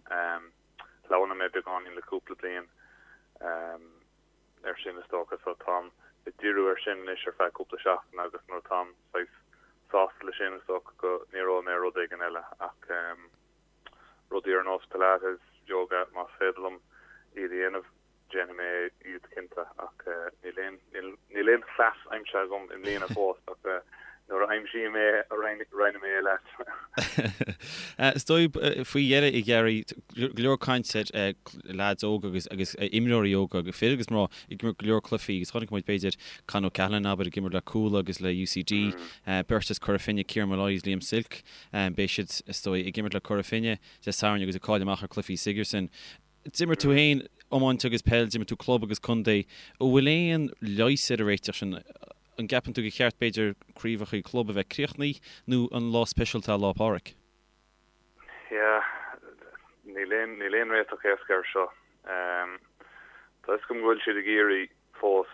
Speaker 6: Shleamhnaigh mé beagáinín le cúpla bliain. air sin is dócha so táim ag díriú air sin anois ar feadh cúpla seachtain agus nuair atáim saghas sásta le sin is dócha go ndíreoidh mé ar rud éigin eile ach rudaí ar nós Pilates, yoga más féidir liom iad a dhéanamh déanfaidh mé iad cinnte ach níl aon níl aon chleas aimsithe agam i mbliana fós ach nuair a aimsím é roinnfidh mé é leat.
Speaker 1: Is dóigh faoi dheireadh a Ghearaí, go leor caint ar leaids óga agus agus imreoirí óga, fir agus mná, ag imirt go leor cluichí agus chonaic muid b'fhéidir Con O'Callaghan abair ag imirt le Cuala agus le UCD, beirt as Cora Finne, Kieran Molloy agus Liam Silke, beidh siad is dóigh ag imirt le Cora Finne Dé Sathairn agus ag cailleadh amach ar chluichí Sigerson. D'imir tú féin iomáint agus peil, d'imir tú club agus contae. An bhfuil aon leigheas ar an réiteach sin? An gceapann tú gur cheart b'fhéidir craobhacha club a bheith críochnaithe nó an lá speisialta é Lá Pádraig?
Speaker 6: Yeah, níl aon, níl aon réiteach éasca air seo. Tá fhios agam go bhfuil siad ag iarraidh fós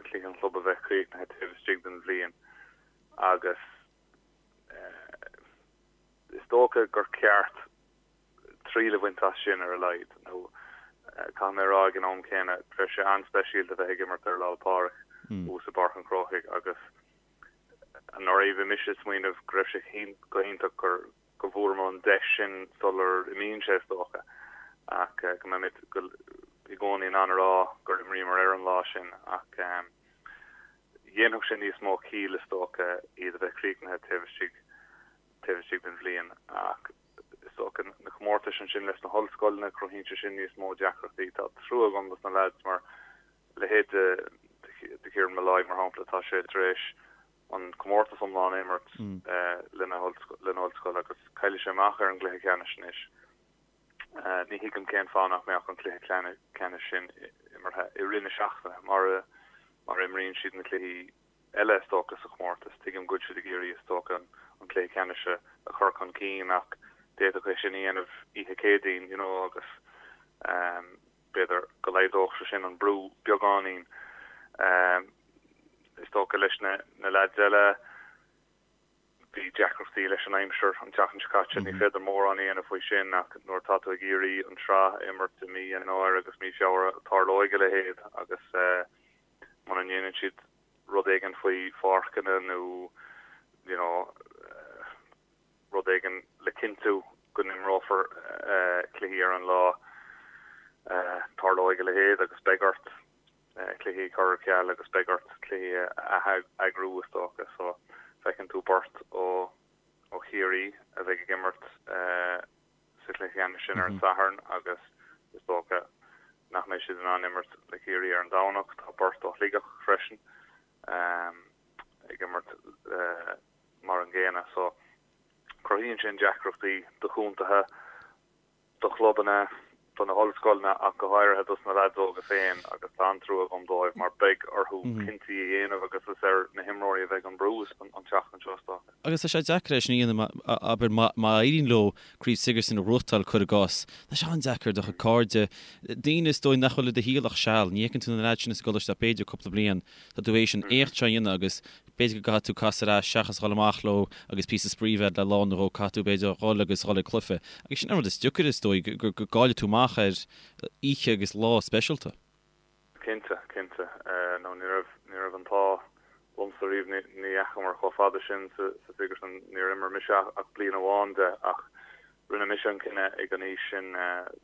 Speaker 6: cluiche an chlub a bheith críochnaithe taobh istigh den bhliain agus is dócha gur ceart triail a bhaint as sin ar a laghad. Nó caithfidh mé a rá ag an am céanna, bheadh sé an-speisialta a bheith ag imirt ar Lá 'le Pádraig thuas i bPáirc an Chrócaigh agus anuraidh bhí mise ag smaoineamh go raibh sé go hiontach gur go bhfuaireamar an deis sin sular imíonn sé is dócha ach go mbeimid i gcónaí in ann a rá gur imríomar ar an lá sin ach dhéanfadh sé níos mó ciall is dócha iad a bheith críochnaithe taobh istigh taobh istigh den bhliain ach is dócha na comórtais ansin leis na hollscoileanna, cruthaíonn sé sin níos mó deacrachtaí. Tá trua agam dos na leaids mar leithéid de Kieran Molloy mar shampla, tá sé tar éis an comórtas iomlán a imirt lena ollscoil agus caillfidh sé amach ar an gcluiche ceannais anois. Ní thuigim cén fáth nach mbeadh an cluiche ceannais sin imeartha i rith na seachtaine mar a imríonn siad na cluichí eile is dócha sa chomórtas. Tuigim go bhfuil siad ag iarraidh is dócha an cluiche ceannais a chur chun cinn ach d'fhéadfadh é sin a dhéanamh oíche Céadaoin you know agus b'fhéidir go laghdódh sé sin an brú beagáinín. Is dócha leis na na leaids eile bhí deacrachtaí leis an aimsir an tseachtain seo caite, ní féidir mórán a dhéanamh faoi sin ach nuair atá tú ag iarraidh an tsraith a imirt i mí Eanáir agus mí Feabhra tarlóidh a leithéid agus muna ndéanann siad rud éigin faoi pháirceanna nó you know rud éigin le cinntiú go n-imreofar cluichí ar an lá, tarlóidh a leithéid agus beidh ort. cluichí a chur ar ceal agus beidh ort cluichí a ath-eagrú is dócha. So feiceann tú beirt ó ó Chiarraí a bheidh ag imirt sa chluiche ceannais sin ar an Satharn agus is dócha nach mbeidh siad in ann imirt le Ciarraí ar an Domhnach. Tá beirt ó Shligeach freisin ag imirt mar an gcéanna. So cruthaíonn sin deacrachtaí do chontaetha. do chlubanna, do na hollscoileanna ach go háirithe dos na leaids óga féin agus tá an-trua agam dóibh mar beidh orthu cinntí a dhéanamh agus is ar na himreoirí a bheidh an brú an tseachtain seo is
Speaker 1: dócha. Agus tá sé deacair é sin a dhéanamh, abair, má éiríonn leo Craobh Sigerson a ghnóthachtáil, cuir i gcás, tá sé an-deacair do chuid cairde, daoine is dóigh nach bhfuil i do shaol ach seal, ní fheiceann tú na leaids sin as an gcoláiste ach b'fhéidir cúpla bliain, tá tú théis an éacht seo a dhéanamh agus B'fhéidir go gcaithfidh tú casadh ar ais seachas dhul amach leo agus píosa spraoi a bheith le lá nó dhó, caithfidh tú b'fhéidir dhul agus dhul ag cluiche. Agus sin an rud is deacair is dóigh, go gcaillfidh tú amach ar oíche agus lá speisialta.
Speaker 6: Cinnte, cinnte. Nó ní raibh, ní raibh an t-ádh liomsa riamh, ní dheachamar chomh fada sin sa Sigerson, níor imir mise ach bliain amháin de ach rinne mise an cinneadh ag an aois sin,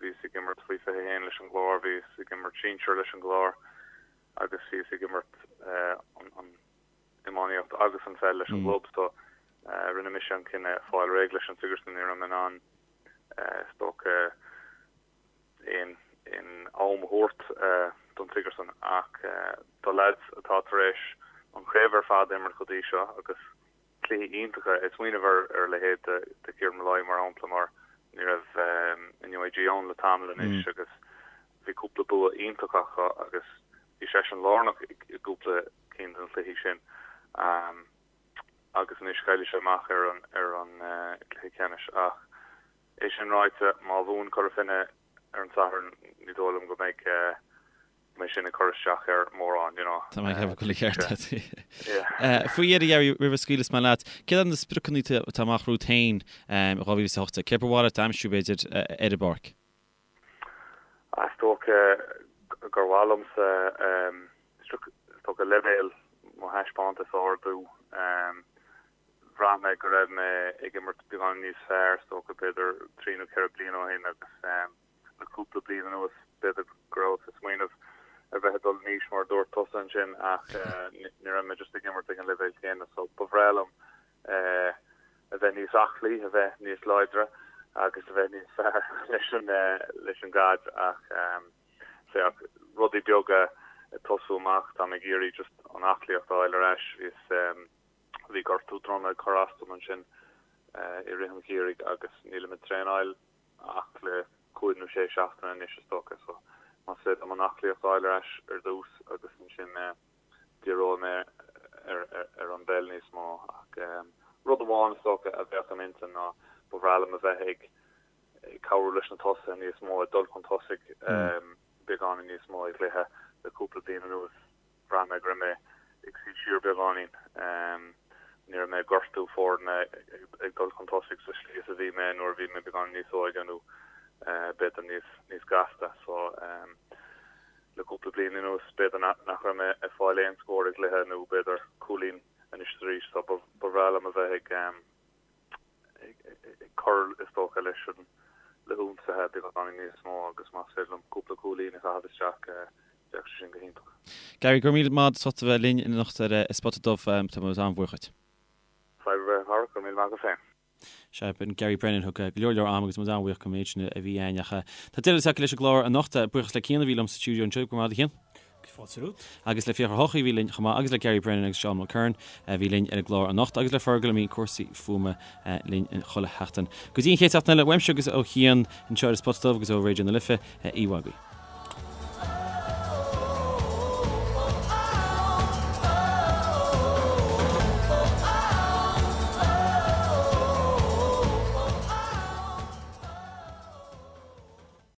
Speaker 6: bhíos ag imirt faoi 21 leis an gClár, bhíos ag imirt sinsir leis an gClár agus bhíos ag imirt an iománaíocht agus an pheil leis an gclub so rinne mise an cinneadh fáil réidh leis an Sigerson, ní raibh mé in ann is dócha aon aon am a thabhairt don Sigerson ach do leaids atá tar éis an chraobh ar fad a imirt go dtí seo agus cluichí iontacha. Ag smaoineamh ar a leithéid de Kieran Molloy mar shampla mar ní raibh an UIG ann le tamall anois agus bhí cúpla bua iontach acu agus bhí seisean lárnach i gcúpla cinn de na cluichí sin agus anois caillfidh sé amach ar an ar an gcluiche ceannais ach é sin ráite má bhuann Cora Finne ar an Satharn ní dóigh liom go mbeidh mbeidh sin ag cur isteach air mórán, you know.
Speaker 1: Tá mé ag ceapadh go bhfuil an ceart agat. Faoi dheireadh, Gary, roimh a scaoilfeas mé leat, céard iad na spriocanna atá amach romhat féin in 2018? Céard ba mhaith leat a aimsiú, b'fhéidir, ar an bpáirc?
Speaker 6: Is dócha gur mhaith liomsa, is dócha, leibhéal mo thaispeántas a ardú. Bhraith mé go raibh mé ag imirt beagán níos fearr, is dócha, b'fhéidir trí nó ceithre bliana ó shin agus le cúpla bliain anuas b'fhéidir go rabhas ag smaoineamh ar bheith ag dul in aois mar a dúirt tusa ansin ach ní raibh mé just ag imirt ag an leibhéal céanna so ba bhreá liom a bheith níos aclaí, a bheith níos láidre agus a bheith níos fearr leis an leis an gcaid ach féach rudaí beaga ag tosú amach tá mé ag iarraidh just an aclaíocht a fháil ar ais bhíos Bhí gortú droma ag cur as dom ansin i rith an gheimhridh agus nílim ag traenáil ach le cúig nó sé seachtaine anois is dócha so más féidir liom an aclaíocht a fháil ar ais ar dtús agus ansin díreoidh mé ar an bpeil níos mó ach rud amháin is dócha a bheadh im intinn ná ba bhreá liom a bheith ag cabhrú leis na tosaithe níos mó ag dul chun tosaigh beagáinín níos mó i gcluiche le cúpla bliain anuas. Bhraith mé go raibh mé ag suí siar beagáinín. Ní raibh mé ag gortú foirne ag dul chun tosaigh sa slí is a bhí mé nuair a bhí mé beagáinín níos óige nó b'fhéidir níos níos gasta. So le cúpla bliain anuas b'fhéidir nach raibh mé ag fáil aon scór i gcluiche nó b'fhéidir cúilín anois is arís. So ba bhreá liom a bheith ag ag cur, is dócha, leis an le hionsaithe beagáinín níos mó agus más féidir liom cúpla cúilín a chaitheamh isteach, bheadh sé sin go hiontach.
Speaker 1: Gary, go raibh míle maith agat as ucht a bheith linn anocht ar An Spota Dubh. Tá muid an-bhuíoch dhuit.
Speaker 6: Fadhb ar bith, a Chara, go raibh míle maith agat féin.
Speaker 1: Sea, b'in Gary Brennan, thug go leor leor ama agus muid an-bhuíoch don méid sin a bhí againn. Ach tá deireadh tagtha leis an gclár anocht. Buíochas le Cian a bhí liom sa stiúideo anseo. Go raibh maith agat, a Chian.
Speaker 2: Fáilte romhat.
Speaker 1: Agus le Fiachra Ó hEochaidh a bhí linn chomh maith agus le Gary Brennan agus Seán Mulkerrin a bhí linn ar an gclár anocht agus le Fergal a mbíonn cúrsaí fuaime linn chuile sheachtain. Go dtí an chéad seachtain eile, uaimse agus ó Chian anseo ar an Spota Dubh agus ó Raidió na Life, oíche mhaith agaibh.